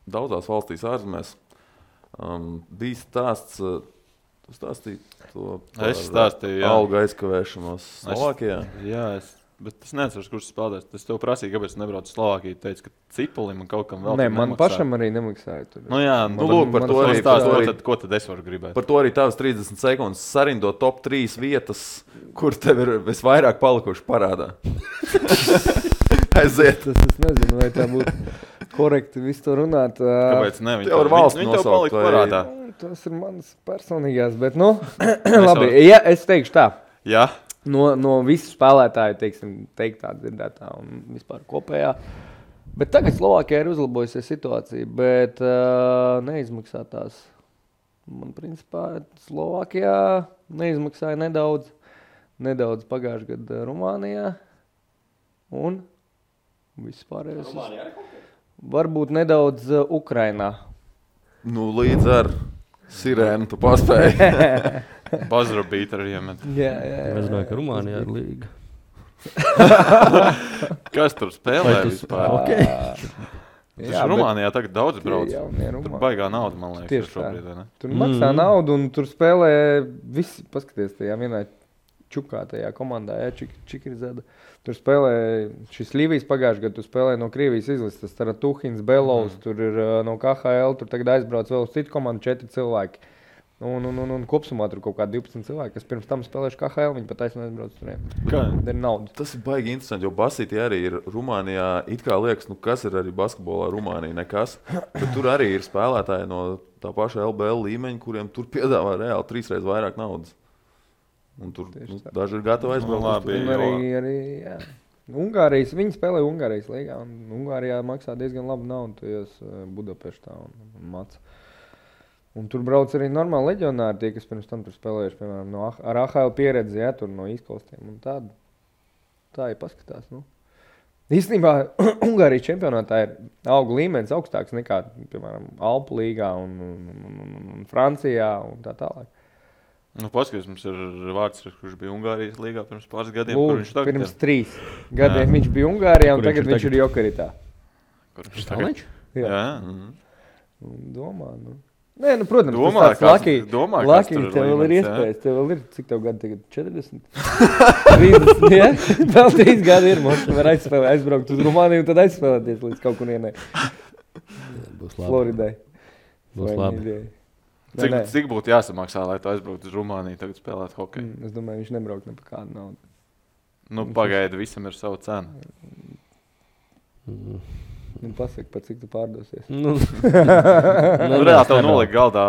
daudzās valstīs ārzemēs. Bija stāsts, tu stāstīji to par algu aizkavēšanos Slovākijā? Jā, bet es neatceros, kurš spēlēs. Es tev prasīju, kāpēc es nebraucu uz Slovākiju. Teicu, ka Cipulim un kaut kam vēl nemaksāja. Man pašam arī nemaksāja. Tur. Nu jā, lūk, par to arī stāst. Ko tad es varu gribēt? Par to arī tavas 30 sekundes sarindo top 3 vietas, kur tev ir visvairāk palikuši parādā. Aiziet. Es nezinu, vai tā būtu korekti visu to runāt. Kāpēc ne? Tev ar valsts viņi tev palika parādā. Tas ir manas personīgās, bet labi. Ja, es teikšu tā. Jā. No visu spēlētāju, teiktā, dzirdētā un vispār kopējā. Bet tagad Slovākijā ir uzlabojusies situācija, bet neizmaksātās. Man principā Slovākijā neizmaksāja nedaudz pagājušajā gadā Rumānijā un vispārējais. Varbūt nedaudz Ukrainā. Nu, līdz ar sirēnu tu paspēji. Bazara bīt ar iemet. Jā. Es domāju, ka Rumānijā ir līga. Kas tur spēlē vispār? Okay. Jā, Rumānijā tagad daudz brauc. Tur baigā nauda, man liekas. Tieši šobrīd, ne? Tur maksā naudu un tur spēlē visi, paskaties, tajā vienā čukā tajā komandā, Čikirizada. Tur spēlē šis Līvijas pagājušajā gadā, tu spēlē no Krievijas izlases, tas Tuhins, Belovs, tur ir no KHL, tur tagad aizbrauc vēl uz citu komandu 4 cilvēki. Un kopsumā tur kaut kādi 12 cilvēki, kas pirms tam spēlējuši KHL, viņi pat aizbrauc turiem. Tā ir nauda. Tas ir baigi interesanti, jo basītī arī ir Rumānijā, it kā liekas, kas ir arī basketbolā Rumānija, nekas. Bet tur arī ir spēlētāji no tā paša LBL līmeņa, kuriem tur piedāvā reāli 3 reizes vairāk naudas. Un tur daži ir gatavi aizbraukt. Arī, jā. Ungārijas, viņi spēlē Ungārijas līgā, un Ungārijā maksā diezgan labu naudu, tojos Budapeštā un Maca. Un tur brauc arī normāli leģionāri, tie, kas pirms tam tur spēlējuši, piemēram, ar AHL pieredzi, jā, tur no izklaustiem. Un tā ir paskatās. Nu. Īstenībā Ungārijas čempionātā ir augu līmenis augstāks nekā, piemēram, Alpu līgā un Francijā un tā tālāk. Nu, paskaties, mums ir vārds, kurš bija Ungārijas līgā pirms pāris gadiem. Lūd, pirms 3 gadiem viņš bija Ungārijā un tagad viņš ir Jokeritā. Kur viņš tagad? Jā. Domā, nu. Nē, nu, protams, tas tāds Laki, tev vēl ir iespējas. Tev vēl ir, cik tev gadu tagad? 40? 30, jā? Vēl 3 gadi ir, mums var aizbraukt uz Rumāniju un tad aizspēlēties līdz kaut kur ienē. Būs labi. Floridai. Būs labi. Cik būtu jāsamaksā, lai tu aizbrauktu uz Rumāniju tagad spēlēt hokeju? Es domāju, viņš nebraukt ne par kādu naudu. Nu, pagaidi, visam ir savu cenu. Nu, pasaki, par cik tu pārdosies. Reāli tev noliek galdā,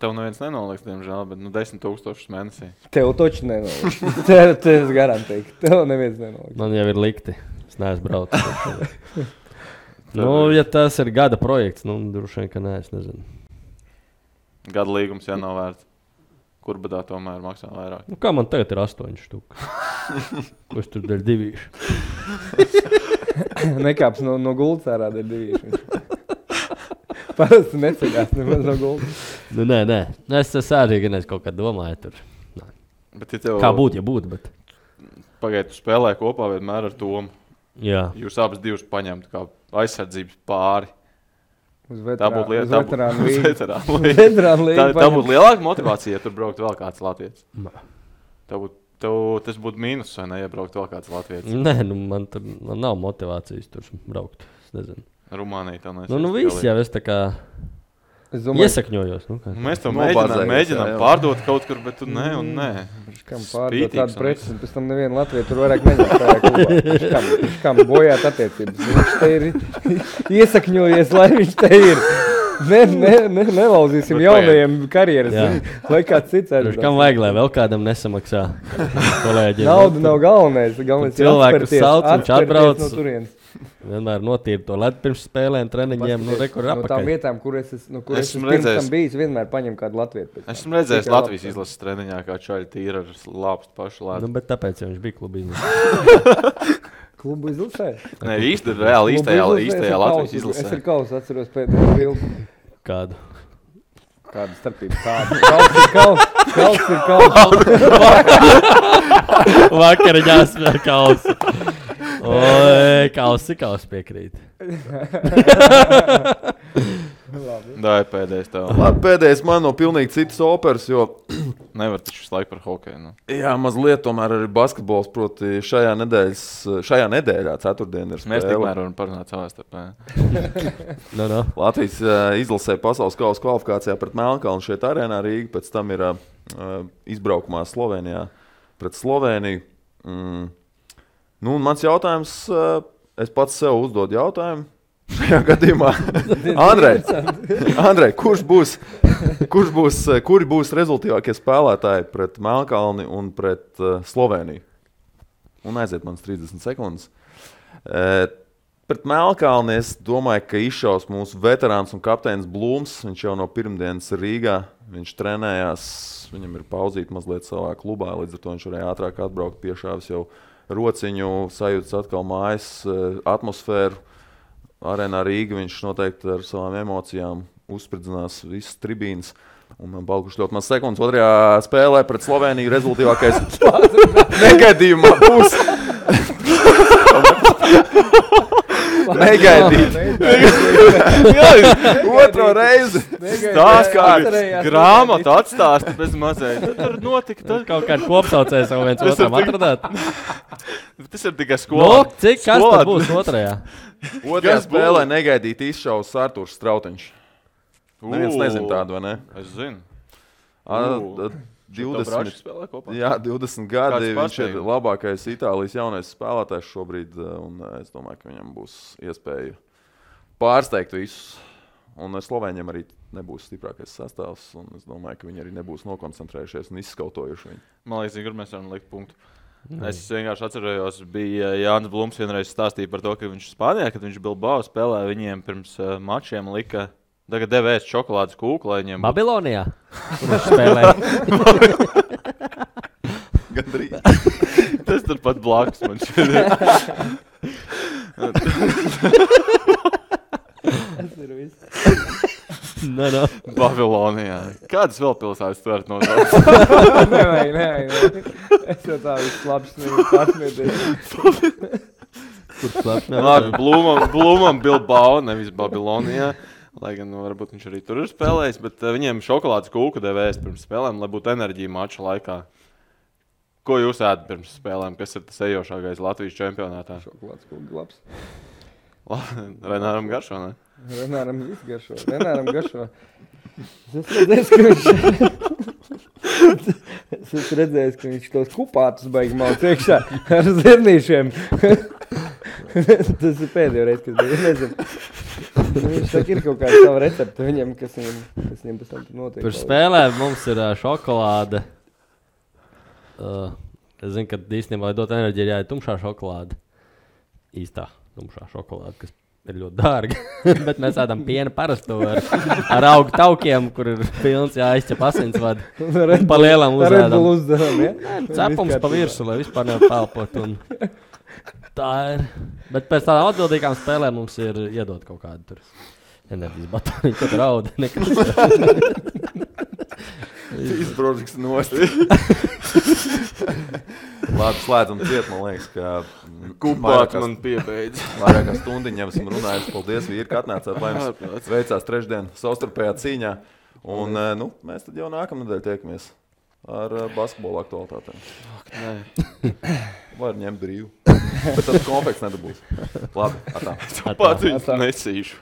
tev neviens nenoliks, diemžēl, bet 10 000 mēnesī. Tev toči nenoliks. Tev es garantēju, ka tev neviens nenoliks. Man jau ir likti. Es neesmu braucis. Ja tas ir gada projekts, droši vien, ka nē, es nezinu. Gada līgums jānovērts. Kur badā tomēr maksā vairāk? Kā man tagad ir 8 štuka? Ko es tur dēļ 2? Nekāps no gultas ārā dēļ 2. Parasti neceļās nemaz no gultas. Nē. Es arī gan kaut kā domāju tur. Bet, ja tev... Kā būtu, ja būtu, bet... Pagaid, tu spēlē kopā vienmēr ar Tomu. Jā. Jūs abas divas paņemtu kā aizsardzības pāri. Uz Tā būtu lieta. veterānu līgu. Veterānu līgu. Tā būtu lielāka motivācija, ja tur braukt vēl kāds latvietis. Tas būtu mīnus, vai ne, ja braukt vēl kāds latvietis. Nē, man nav motivācijas tur braukt. Es nezinu. Rumānija tā nesaka. Nu viss jau es tā kā iesakņojos. Mēs to mēģinām pārdot kaut kur, bet tu nē un nē. Kam pārdot tādu preci, un pēc tam nevienu Latviju tur vairāk neņem tajā klubā. Kam bojāt attiecības. Viņš te ir iesakņojies, lai viņš te ir. Nelauzīsim jaunajiem karjeras. Lai kāds cits arī. Kam vajag, lai vēl kādam nesamaksā kolēģiem? Nauda nav galvenais. Galvenais ir atspērties no turienes. Vienmēr notīra to ledu pirms spēlēm, treniņiem, rekur apakaļ. No tām vietām, kur es esmu pirms tam bijis, vienmēr paņem kādu latvietu. Esmu redzējis Latvijas izlases treniņā, kā čaļi tīra ar lāpstu pašu ledu. Bet tāpēc jau viņš bija klubu izlasē. Klubu izlasē? Nē, reāli īstajā Latvijas izlasē. Es ar kausu atceros pēdējo bildi. Kādu? Kāda starpība? Kauss ir kauss. Vakariņās vēl kausu. Oi, kausi piekrīt. Tā ir pēdējais tev. Labi, pēdējais man no pilnīgi citas operas, jo... Nevar taču visu laiku par hokeju. Nu. Jā, mazliet tomēr arī basketbols, proti šajā nedēļā, ceturtdien ir spēle. Mēs tikmēr varam parunāt savā starpā. No. Latvijas izlasē pasaules kausa kvalifikācijā pret Melnkalnu šeit arēnā Rīga, pēc tam ir izbraukumā Slovenijā pret Sloveniju. Nu, un mans jautājums, es pats sev uzdodu jautājumu šajā gadījumā. Andrej, kuri būs rezultīvākie spēlētāji pret Melnkalni un pret Sloveniju? Un aiziet manas 30 sekundes. Pret Melnkalni es domāju, ka izšaus mūsu veterāns un kapteinis Blūms. Viņš jau no pirmdienas Rīgā, viņš trenējās, viņam ir pauzīti mazliet savā klubā, līdz ar to viņš varēja ātrāk atbraukt, piešāvis jau rociņu, sajūtas atkal mājas atmosfēru. Arēnā Rīga viņš noteikti ar savām emocijām uzspridzinās visas tribīnas. Un man palikuši ļoti maz sekundes. Otrajā spēlē pret Sloveniju rezultīvākais negaidījumā būs. Negaidīt. Otro reizi. Stāst kāds grāmatu atstāst bez mazēt. Tur notika. Tad kaut kāds kopsaucējs jau viens otram atradāt. Tas ir tikai skolā. Cik kas tad būs otrajā? Otrajā spēlē negaidīt izšaus Artūrs Strautiņš. Neviens nezin tādu, vai ne? Es zinu. 20 gadi. Viņš ir labākais Itālijas jaunais spēlētājs šobrīd, un es domāju, ka viņam būs iespēja pārsteigt visus. Un Slovēņiem arī nebūs stiprākais sastāvs, un es domāju, ka viņi arī nebūs nokoncentrējušies un izskautojuši viņu. Man liekas, kur mēs varam likt punktu. Es vienkārši atcerējos, bija Jānis Blums vienreiz stāstīja par to, ka viņš Spānijā, kad viņš Bilbao spēlēja, viņiem pirms mačiem lika tagad devēs šokolādes kūku, lai viņiem... Babilonijā? Kur viņš spēlēja? Gandrīz. Tas tur pat blakus man šodien. Tas ir viss. No. Babilonijā. Kādas vēl pilsētas tu varat nosaukt? Nevajag. Es jau tā viss labs nevis pārsmieties. Kur slēpt? Labi, Blumam Bilbao, nevis Babilonijā. Lai gan varbūt viņš arī tur ir spēlējis, bet viņiem šokolādes kūku devēs pirms spēlēm, lai būtu enerģija mača laikā. Ko jūs ēdat pirms spēlēm? Kas ir tas ejošākais Latvijas čempionātā? Šokolādes kūku labs. Renāram garšo, ne? Renāram viss garšo. Renāram garšo. Es redzēju, ka viņš tos kupātus baigi malc iekšā ar zirnīšiem. Tas ir pēdējo reizi, kas bija. Nezinu. Viņš saka, ir kaut kāda sava recepta viņam, kas viņam pēc tam notiek. Pirms spēlēm mums ir šokolāde. Es zinu, ka īstenībā, lai dot enerģiju, ir jāiet tumšā šokolāde. Īstā tumšā šokolāde, kas ir ļoti dārga. Bet mēs ēdam piena parasto ar augu taukiem, kur ir pilns jāizķep asinsvadi. Pa lielam uzēdam. Red Bull uzderam, ja? Cepums pa virsu, lai vispār nepelpot. Un tā ir. Bet pēc tādām atbildīgām spēlēm mums ir iedot kaut kādu tur enerģijas batoniņu, kad rauda nekas. Izbrožiks nost. Labi, slēdzam ciet, man liekas, ka Kupāt man piebeidz. Vairāk kā stundiņu jau esam runājuši. Paldies, vīri, ka atnācāt, lai mums veicās trešdien savstarpējā cīņā. Un mēs tad jau nākamnedēļ tiekamies ar basketbola aktualitātēm. Var ņemt brīvu. Bet tad konfekts nedabūs. Labi, atā. Pats viņus nesīšu.